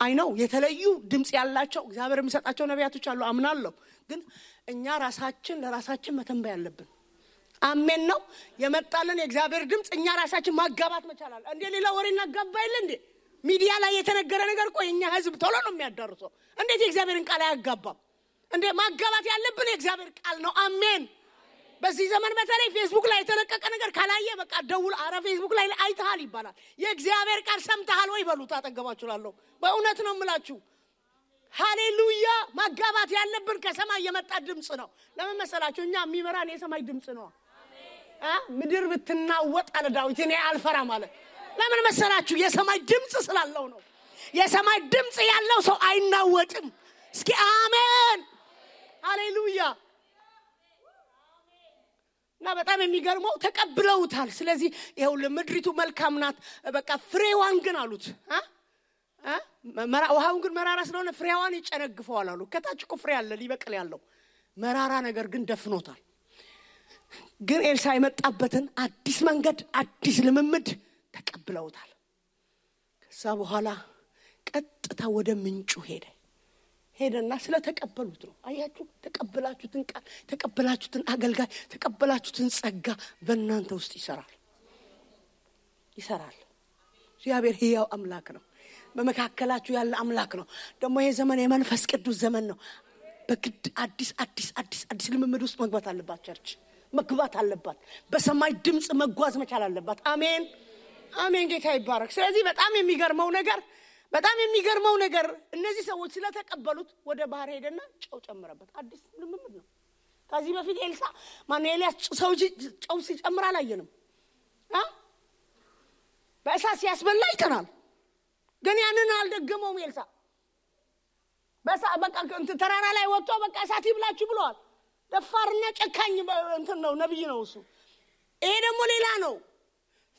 አይ ነው የተለዩ ድምጽ ያላቸው እግዚአብሔር የሚሰጣቸው ነቢያቶች አሉ አምናለሁ። ግን እኛ ራሳችን ለራሳችን መተንበይ አለብን። አሜን ነው የመጣልን የእግዚአብሔር ድምጽ እኛ ራሳችን ማጋባት መቻል አለ። እንዴ ሌላ ወሬ እናጋባይል እንዴ? ሚዲያ ላይ የተነገረ ነገር እኮ የኛ ህዝብ ቶሎ ነው የሚያዳርሰው። እንዴት የእግዚአብሔርን ቃል አያጋባም እንዴ? ማጋባት ያለብን የእግዚአብሔር ቃል ነው። አሜን። በዚህ ዘመን በተለይ ፌስቡክ ላይ የተለቀቀ ነገር ካላየ በቃ ደውል፣ አረ ፌስቡክ ላይ አይተሃል ይባላል። የእግዚአብሔር ቃል ሰምተሃል ወይ በሉት። አጠገባችሁላለሁ። በእውነት ነው የምላችሁ። ሃሌሉያ። ማጋባት ያለብን ከሰማይ የመጣ ድምጽ ነው። ለምን መሰላችሁ? እኛ የሚመራን የሰማይ ድምጽ ነው። ምድር ብትናወጥ አለ ዳዊት እኔ አልፈራም አለ። ለምን መሰላችሁ? የሰማይ ድምጽ ስላለው ነው። የሰማይ ድምጽ ያለው ሰው አይናወጥም። እስኪ አሜን ሃሌሉያ። እና በጣም የሚገርመው ተቀብለውታል። ስለዚህ ይሄው ለምድሪቱ መልካም ናት በቃ ፍሬዋን ግን አሉት ውሃውን ግን መራራ ስለሆነ ፍሬዋን ይጨነግፈዋል አሉ። ከታች እኮ ፍሬ አለ ሊበቅል ያለው መራራ ነገር ግን ደፍኖታል። ግን ኤልሳ የመጣበትን አዲስ መንገድ አዲስ ልምምድ ተቀብለውታል። በኋላ ቀጥታ ወደ ምንጩ ሄደና ስለተቀበሉት ነው። አያችሁ ተቀበላችሁትን ቃል ተቀበላችሁትን አገልጋይ ተቀበላችሁትን ጸጋ በእናንተ ውስጥ ይሰራል። እግዚአብሔር ሕያው አምላክ ነው። በመካከላችሁ ያለ አምላክ ነው። ደግሞ ይሄ ዘመን የመንፈስ ቅዱስ ዘመን ነው። በግድ አዲስ ልምምድ ውስጥ መግባት አለባት። ቸርች መግባት አለባት። በሰማይ ድምጽ መጓዝ መቻል አለባት። አሜን አሜን። ጌታ ይባረክ። ስለዚህ በጣም የሚገርመው ነገር እነዚህ ሰዎች ስለተቀበሉት ወደ ባህር ሄደና ጨው ጨመረበት። አዲስ ልምምድ ነው። ከዚህ በፊት ኤልያስ ጨው ሲጨምር አላየንም። በእሳት ሲያስበላ አይተናል። ግን ያንን አልደገመውም ኤልሳ። በቃ ተራራ ላይ ወጥቶ በቃ እሳት ይብላችሁ ብለዋል። ደፋርና ጨካኝ ነው፣ ነብይ ነው እሱ። ይሄ ደግሞ ሌላ ነው።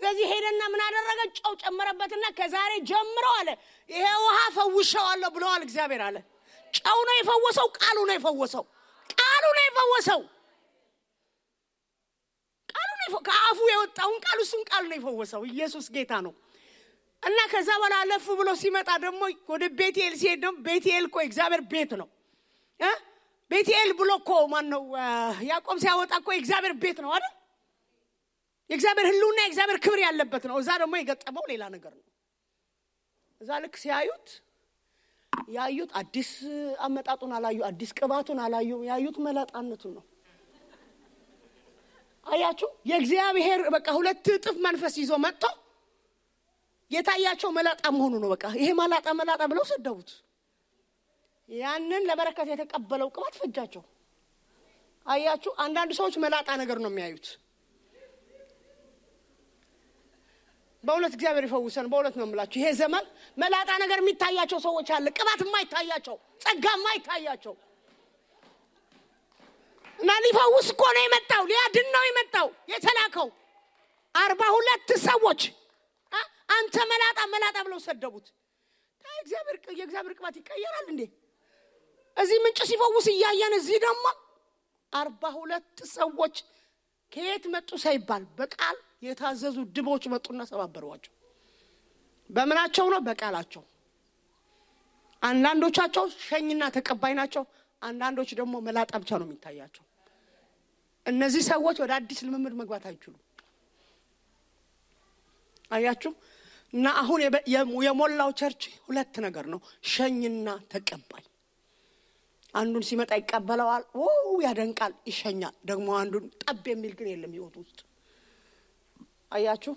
ስለዚህ ሄደና ምን አደረገ? ጨው ጨመረበትና ከዛሬ ጀምሮ አለ ይሄ ውሃ ፈውሻለሁ ብለዋል እግዚአብሔር አለ። ጨው ነው የፈወሰው፣ ቃሉ ነው የፈወሰው። ከአፉ የወጣውን ቃሉ ነው የፈወሰው። ኢየሱስ ጌታ ነው። እና ከዛ በኋላ አለፍ ብሎ ሲመጣ ደግሞ ወደ ቤቴል ሲሄድ ደግሞ ቤቴል እኮ እግዚአብሔር ቤት ነው። ቤቴል ብሎ እኮ ማን ነው ያዕቆብ ሲያወጣ እኮ እግዚአብሔር ቤት ነው አይደል? የእግዚአብሔር ህልውና የእግዚአብሔር ክብር ያለበት ነው። እዛ ደግሞ የገጠመው ሌላ ነገር ነው። እዛ ልክ ያዩት አዲስ አመጣጡን አላዩ፣ አዲስ ቅባቱን አላዩ። ያዩት መላጣነቱን ነው። አያችሁ የእግዚአብሔር በቃ ሁለት እጥፍ መንፈስ ይዞ መጥቶ የታያቸው መላጣ መሆኑ ነው። በቃ ይሄ መላጣ ብለው ሰደቡት። ያንን ለበረከት የተቀበለው ቅባት ፈጃቸው። አያችሁ አንዳንድ ሰዎች መላጣ ነገር ነው የሚያዩት። በእውነት እግዚአብሔር ይፈውሰን። በእውነት ነው የምላችሁ ይሄ ዘመን መላጣ ነገር የሚታያቸው ሰዎች አለ። ቅባት የማይታያቸው፣ ጸጋ የማይታያቸው እና ሊፈውስ እኮ ነው የመጣው፣ ሊያድን ነው የመጣው የተላከው 42 ሰዎች አንተ መላጣ ብለው ሰደቡት። የእግዚአብሔር ቅባት ይቀየራል እንዴ? እዚህ ምንጭ ሲፈውስ እያየን እዚህ ደግሞ 42 ሰዎች ከየት መጡ ሳይባል በቃል የታዘዙ ድቦች መጡና ሰባበሯቸው። በመናቸው ነው? በቃላቸው። አንዳንዶቻቸው ሸኝና ተቀባይ ናቸው፣ አንዳንዶች ደግሞ መላጣ ብቻ ነው የሚታያቸው። እነዚህ ሰዎች ወደ አዲስ ልምምድ መግባት አይችሉም። አያችሁ እና አሁን የሞላው ቸርች ሁለት ነገር ነው፣ ሸኝና ተቀባይ። አንዱን ሲመጣ ይቀበለዋል፣ ያደንቃል፣ ይሸኛል። ደግሞ አንዱን ጠብ የሚል ግን የለም ህይወት ውስጥ። አያችሁ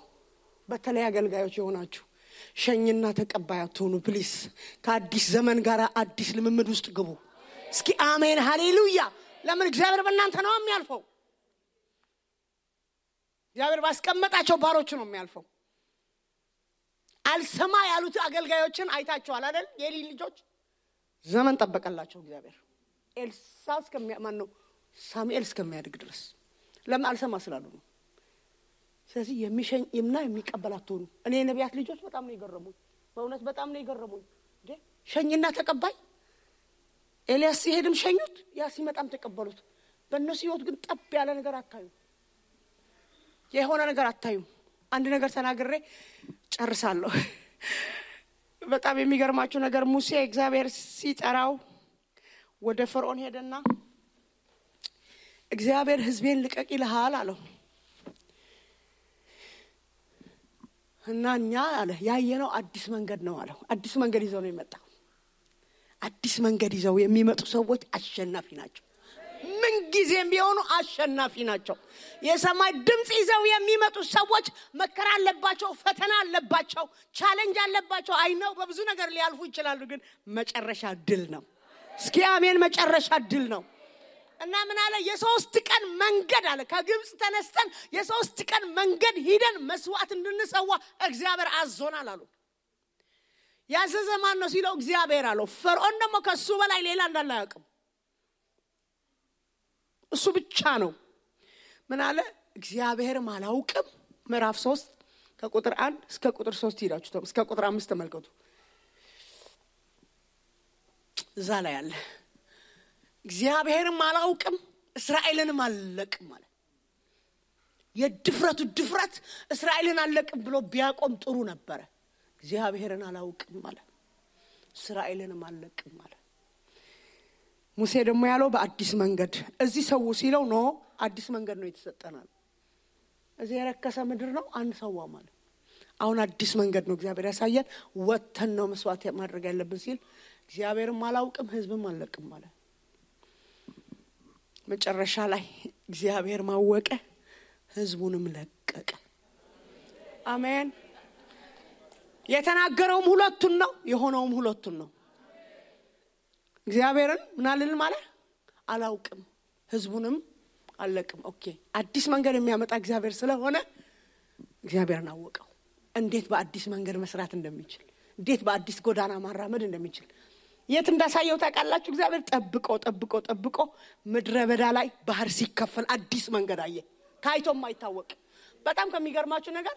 በተለይ አገልጋዮች የሆናችሁ ሸኝና ተቀባይ አትሁኑ ፕሊስ። ከአዲስ ዘመን ጋር አዲስ ልምምድ ውስጥ ግቡ። እስኪ አሜን ሃሌሉያ። ለምን? እግዚአብሔር በእናንተ ነው የሚያልፈው። እግዚአብሔር ባስቀመጣቸው ባሮች ነው የሚያልፈው። አልሰማ ያሉት አገልጋዮችን አይታችኋል አይደል? የኤሊ ልጆች ዘመን ጠበቀላቸው እግዚአብሔር ሳሙኤል እስከሚያድግ ድረስ። ለምን? አልሰማ ስላሉ ነው። ስለዚህ የሚሸኝና የሚቀበላት ሆኑ። እኔ ነቢያት ልጆች በጣም ነው የገረሙኝ፣ በእውነት በጣም ነው የገረሙኝ። ሸኝና ተቀባይ። ኤልያስ ሲሄድም ሸኙት፣ ያ ሲመጣም ተቀበሉት። በእነሱ ህይወት ግን ጠብ ያለ ነገር አታዩ፣ የሆነ ነገር አታዩ። አንድ ነገር ተናግሬ ጨርሳለሁ። በጣም የሚገርማችሁ ነገር ሙሴ እግዚአብሔር ሲጠራው ወደ ፈርዖን ሄደና እግዚአብሔር ህዝቤን ልቀቅ ይልሃል አለው። እና እኛ አለ ያየነው አዲስ መንገድ ነው አለው። አዲስ መንገድ ይዘው ነው የመጣው። አዲስ መንገድ ይዘው የሚመጡ ሰዎች አሸናፊ ናቸው። ምን ጊዜም ቢሆኑ አሸናፊ ናቸው። የሰማይ ድምጽ ይዘው የሚመጡ ሰዎች መከራ አለባቸው፣ ፈተና አለባቸው፣ ቻሌንጅ አለባቸው። አይነው በብዙ ነገር ሊያልፉ ይችላሉ፣ ግን መጨረሻ ድል ነው። እስኪ አሜን። መጨረሻ ድል ነው። እና ምን አለ? የ3 ቀን መንገድ አለ ከግብጽ ተነስተን የ3 ቀን መንገድ ሄደን መስዋዕት እንድንሰዋ እግዚአብሔር አዞናል አሉ። ያዘዘ ማን ነው ሲለው እግዚአብሔር አለው። ፈርዖን ደግሞ ከሱ በላይ ሌላ እንዳለ አያውቅም፣ እሱ ብቻ ነው። ምን አለ? እግዚአብሔርም አላውቅም። ምዕራፍ 3 ከቁጥር 1 እስከ ቁጥር 3 ሄዳችሁ እስከ ቁጥር 5 ተመልከቱ። እዛ ላይ አለ እግዚአብሔርም አላውቅም እስራኤልንም አልለቅም ማለት። የድፍረቱ ድፍረት እስራኤልን አልለቅም ብሎ ቢያቆም ጥሩ ነበር። እግዚአብሔርን አላውቅም አለ። እስራኤልንም አልለቅም አለ። ሙሴ ደግሞ ያለው በአዲስ መንገድ እዚህ ሰው ሲለው ነው አዲስ መንገድ ነው የተሰጠናል። እዚህ የረከሰ ምድር ነው አንሰዋ ማለት አሁን አዲስ መንገድ ነው እግዚአብሔር ያሳየን። ወተን ነው መስዋዕት ማድረግ ያለብን ሲል እግዚአብሔርም አላውቅም ህዝብም አልለቅም ማለት መጨረሻ ላይ እግዚአብሔር ማወቀ ህዝቡንም ለቀቀ። አሜን። የተናገረውም ሁለቱን ነው የሆነውም ሁለቱን ነው። እግዚአብሔርን ምናልን ማለት አላውቅም ህዝቡንም አልለቅም። ኦኬ አዲስ መንገድ የሚያመጣ እግዚአብሔር ስለሆነ እግዚአብሔርን አወቀው። እንዴት በአዲስ መንገድ መስራት እንደሚችል እንዴት በአዲስ ጎዳና ማራመድ እንደሚችል የት እንዳሳየው ታውቃላችሁ? እግዚአብሔር ጠብቆ ምድረ በዳ ላይ ባህር ሲከፈል አዲስ መንገድ አየ። ታይቶም አይታወቅ። በጣም ከሚገርማችሁ ነገር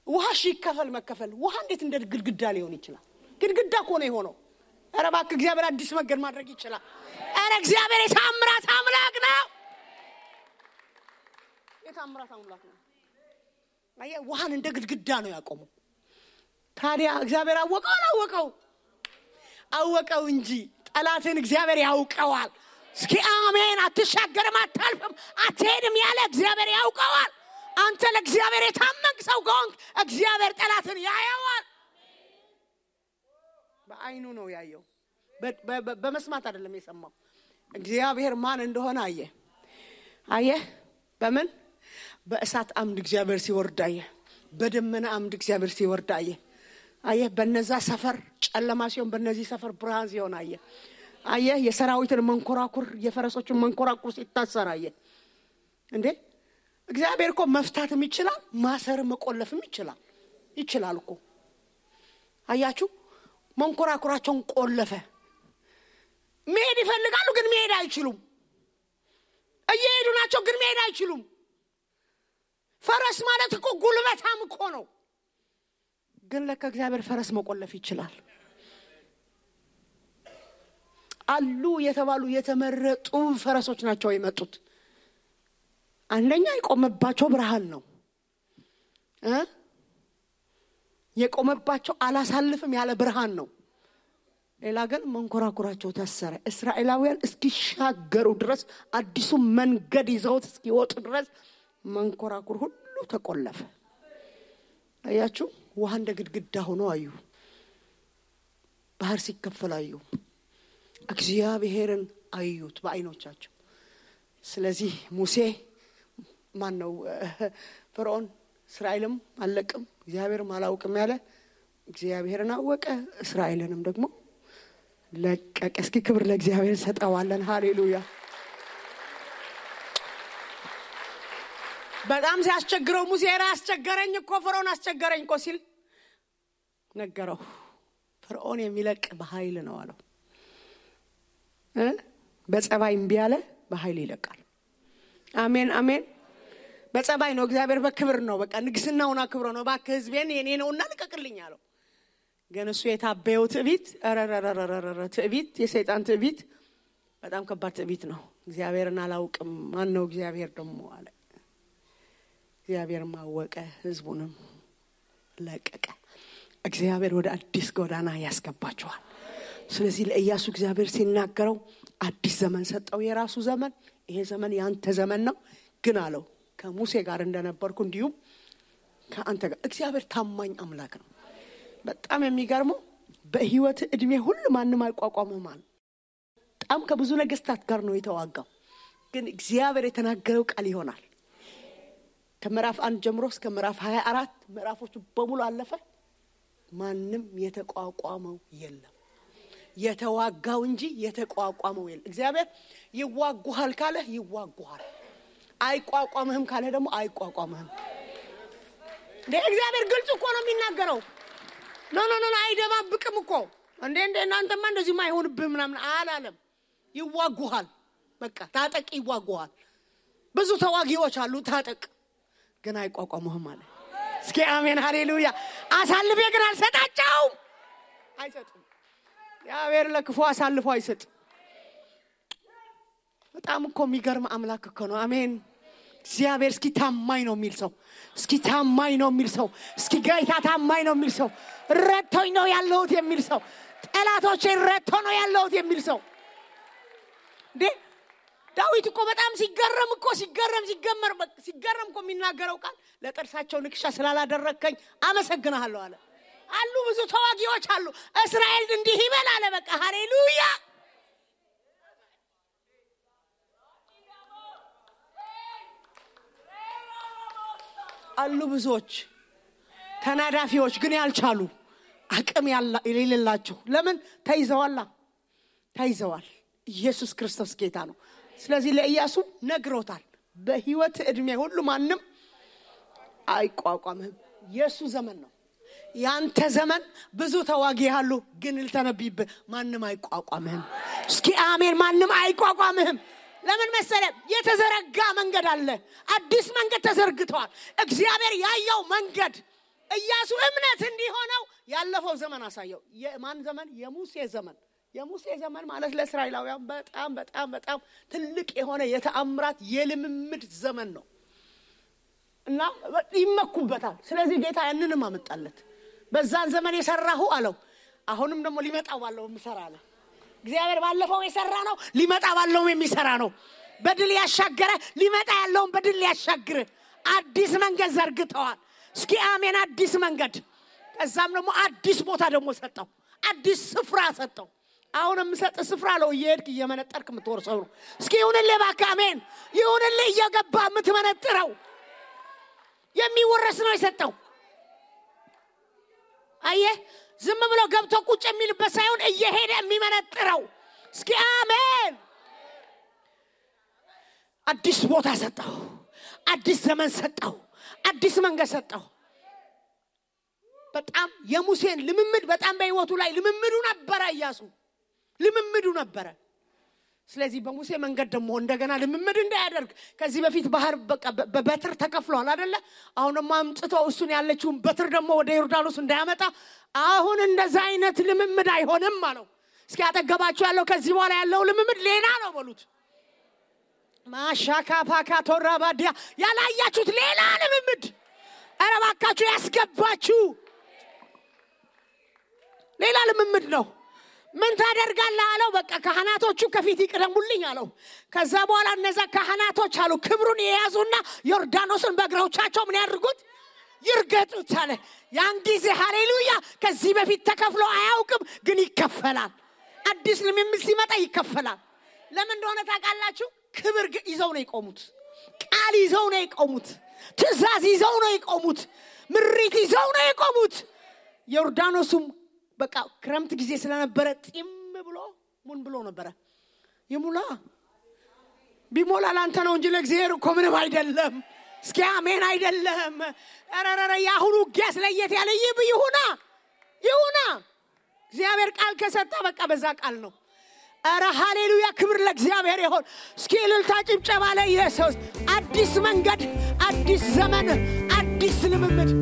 ውሃ ሲከፈል መከፈል ውሃ እንዴት እንደ ግድግዳ ሊሆን ይችላል? ግድግዳ እኮ ነው የሆነው። ኧረ እባክህ እግዚአብሔር አዲስ መንገድ ማድረግ ይችላል። ኧረ እግዚአብሔር የታምራት አምላክ ነው። የታምራት አምላክ ነው። አየ ውሃን እንደ ግድግዳ ነው ያቆመው። ታዲያ እግዚአብሔር አወቀው አወቀው እንጂ ጠላትን እግዚአብሔር ያውቀዋል። እስኪ አሜን። አትሻገርም፣ አታልፍም፣ አትሄድም ያለ እግዚአብሔር ያውቀዋል። አንተ ለእግዚአብሔር የታመንክ ሰው ከሆንክ እግዚአብሔር ጠላትን ያየዋል። በአይኑ ነው ያየው፣ በመስማት አይደለም የሰማው። እግዚአብሔር ማን እንደሆነ አየ። በምን? በእሳት አምድ እግዚአብሔር ሲወርድ አየ። በደመና አምድ እግዚአብሔር ሲወርድ አየ። በነዛ ሰፈር ጨለማ ሲሆን በነዚህ ሰፈር ብርሃን ሲሆን አየ። የሰራዊትን መንኮራኩር የፈረሶችን መንኮራኩር ሲታሰር አየ። እንዴ እግዚአብሔር እኮ መፍታትም ይችላል፣ ማሰርም መቆለፍም ይችላል እኮ። አያችሁ መንኮራኩራቸውን ቆለፈ። መሄድ ይፈልጋሉ ግን መሄድ አይችሉም። እየሄዱ ናቸው ግን መሄድ አይችሉም። ፈረስ ማለት እኮ ጉልበታም እኮ ነው። ግን ለካ እግዚአብሔር ፈረስ መቆለፍ ይችላል። አሉ የተባሉ የተመረጡ ፈረሶች ናቸው የመጡት። አንደኛ የቆመባቸው ብርሃን ነው። የቆመባቸው አላሳልፍም ያለ ብርሃን ነው። ሌላ ግን መንኮራኩራቸው ታሰረ። እስራኤላውያን እስኪሻገሩ ድረስ አዲሱ መንገድ ይዘውት እስኪወጡ ድረስ መንኮራኩር ሁሉ ተቆለፈ። አያችሁ ውሃ እንደ ግድግዳ ሆኖ አዩ። ባህር ሲከፈል አዩ። እግዚአብሔርን አዩት በአይኖቻቸው። ስለዚህ ሙሴ ማነው ፈርዖን እስራኤልም አልለቅም እግዚአብሔርም አላውቅም ያለ እግዚአብሔርን አወቀ፣ እስራኤልንም ደግሞ ለቀቀ። እስኪ ክብር ለእግዚአብሔር ሰጠዋለን። ሃሌሉያ። በጣም ሲያስቸግረው ሙሴ አስቸገረኝ እኮ ፈርዖን አስቸገረኝ እኮ ሲል ነገረው። ፈርዖን የሚለቅ በኃይል ነው አለው። በጸባይ እምቢ ያለ በኃይል ይለቃል። አሜን አሜን። በጸባይ ነው እግዚአብሔር በክብር ነው በቃ ንግስናውና ክብር ነው ባክ ህዝቤን የኔ ነውና ልቀቅልኝ አለው። ግን እሱ የታበየው ትዕቢት ትዕቢት የሰይጣን ትዕቢት በጣም ከባድ ትዕቢት ነው። እግዚአብሔርን አላውቅም ማን ነው እግዚአብሔር ደግሞ አለ። እግዚአብሔር ማወቀ ህዝቡንም ለቀቀ። እግዚአብሔር ወደ አዲስ ጎዳና ያስገባቸዋል። ስለዚህ ለኢያሱ እግዚአብሔር ሲናገረው አዲስ ዘመን ሰጠው። የራሱ ዘመን ይሄ ዘመን ያንተ ዘመን ነው ግን አለው ከሙሴ ጋር እንደነበርኩ እንዲሁ ከአንተ ጋር። እግዚአብሔር ታማኝ አምላክ ነው። በጣም የሚገርመው በህይወት እድሜ ሁሉ ማንንም አይቋቋምም ማለት በጣም ከብዙ ነገስታት ጋር ነው የተዋጋው። ግን እግዚአብሔር የተናገረው ቃል ይሆናል። ከምዕራፍ 1 ጀምሮ እስከ ምዕራፍ 24 ምዕራፎቹ በሙሉ አለፈ። ማንንም የተቋቋመው የለም። የተዋጋው እንጂ የተቋቋመው የለም። እግዚአብሔር ይዋጉሃል ካለ ይዋጉሃል፣ አይቋቋምህም ካለ ደግሞ አይቋቋምህም። እግዚአብሔር ግልጽ እኮ ነው የሚናገረው። ኖ አይደባብቅም እኮ። እንዴ እናንተማ እንደዚህ ማይሆንብህ ምናምን አላለም። ይዋጉሃል በቃ ታጠቅ፣ ይዋጉሃል። ብዙ ተዋጊዎች አሉ ታጠቅ፣ ግን አይቋቋምህም አለ። እስኪ አሜን ሃሌሉያ። አሳልፌ ግን አልሰጣቸውም። አይሰጥም። እግዚአብሔር ለክፉ አሳልፎ አይሰጥ። በጣም እኮ የሚገርም አምላክ እኮ ነው። አሜን። እግዚአብሔር እስኪ ታማኝ ነው የሚል ሰው እስኪ ታማኝ ነው የሚል ሰው እስኪ ጌታ ታማኝ ነው የሚል ሰው ረድቶኝ ነው ያለሁት የሚል ሰው ጠላቶቼን ረድቶ ነው ያለሁት የሚል ሰው እንዴ ዳዊት እኮ በጣም ሲገረም እኮ የሚናገረው ቃል ለጥርሳቸው ንክሻ ስላላደረከኝ አመሰግናለሁ አለ አሉ ብዙ ተዋጊዎች አሉ እስራኤል እንዲህ ይበል አለ በቃ ሃሌሉያ አሉ ብዙዎች ተናዳፊዎች ግን ያልቻሉ አቅም የሌላቸው ለምን ተይዘዋል ኢየሱስ ክርስቶስ ጌታ ነው ስለዚህ ለኢያሱ ነግሮታል በህይወት እድሜ ሁሉ ማንም አይቋቋምህም ኢየሱስ ዘመን ነው ያንተ ዘመን ብዙ ተዋጊ ያሉ ግን ልተነብይብ ማንም አይቋቋምህም እስኪ አሜን ማንም አይቋቋምህም ለምን መሰለ የተዘረጋ መንገድ አለ አዲስ መንገድ ተዘርግቷል እግዚአብሔር ያየው መንገድ ኢያሱ እምነት እንዲሆነው ያለፈው ዘመን አሳየው የማን ዘመን የሙሴ ዘመን ማለት ለእስራኤላውያን በጣም ትልቅ የሆነ የተአምራት የልምምድ ዘመን ነው እና ይመኩበታል ስለዚህ ጌታ ያንንም አመጣለት በዛን ዘመን የሰራሁ አለው አሁንም ደግሞ ሊመጣው ባለው ምሰራለ እግዚአብሔር ባለፈው የሰራ ነው ሊመጣ ባለው የሚሰራ ነው በድል ያሻገረ ሊመጣ ያለውን በድል ያሻግር አዲስ መንገድ ዘርግተዋል እስኪ አሜን አዲስ መንገድ ከዛም ደግሞ አዲስ ቦታ ደግሞ ሰጠው አዲስ ስፍራ ሰጠው አሁንም ሰጠ ስፍራ ነው እየሄድክ እየመነጠርክ ምትወርሰው ነው እስኪ ይሁንልህ ባካ አሜን ይሁንልህ እየገባ ምትመነጥረው የሚወረስ ነው የሰጠው አየህ ዝም ብሎ ገብቶ ቁጭ የሚልበት ሳይሆን እየሄደ የሚመነጥረው እስኪ አሜን አዲስ ቦታ ሰጠው አዲስ ዘመን ሰጠው አዲስ መንገድ ሰጠው በጣም የሙሴን ልምምድ በጣም በህይወቱ ላይ ልምምዱ ነበረ ስለዚህ በሙሴ መንገድ ደግሞ እንደገና ልምምድ እንዳያደርግ ከዚህ በፊት ባህር በበትር ተከፍሏል አይደለ አሁንም አምጥተው እሱን ያለችውን በትር ደግሞ ወደ ዮርዳኖስ እንዳያመጣ አሁን እንደዛ አይነት ልምምድ አይሆንም አለው እስኪ አጠገባችሁ ያለው ከዚህ በኋላ ያለው ልምምድ ሌላ ነው በሉት ማሻካ ፓካ ቶራባዲያ ያላያችሁት ሌላ ልምምድ አረባካችሁ ያስገባችሁ ሌላ ልምምድ ነው ምን ታደርጋለህ አለው በቃ ካህናቶቹ ከፊት ይቀደሙልኝ አለው ከዛ በኋላ እነዛ ካህናቶች አሉ ክብሩን የያዙና ዮርዳኖስን በእግሮቻቸው ምን ያድርጉት ይርገጡት አለ ያን ጊዜ ሃሌሉያ ከዚህ በፊት ተከፍሎ አያውቅም ግን ይከፈላል አዲስ ልምምድ ሲመጣ ይከፈላል ለምን እንደሆነ ታውቃላችሁ ክብር ይዘው ነው የቆሙት ቃል ይዘው ነው የቆሙት ትእዛዝ ይዘው ነው የቆሙት ምሪት ይዘው ነው የቆሙት ዮርዳኖስም በቃ ክረምት ጊዜ ስለነበረ ጢም ብሎ ምን ብሎ ነበር ይሙላ ቢሞላ ላንተ ነው እንጂ ለእግዚአብሔር እኮ ምንም አይደለም እስኪ አሜን አይደለም አረረረ ያሁኑ ጊያስ ለየት ያለ ይሁና እግዚአብሔር ቃል ከሰጣ በቃ በዛ ቃል ነው አረ ሃሌሉያ ክብር ለእግዚአብሔር ይሁን እስኪ እልልታ ጭብጨባ ለኢየሱስ አዲስ መንገድ አዲስ ዘመን አዲስ ልምምድ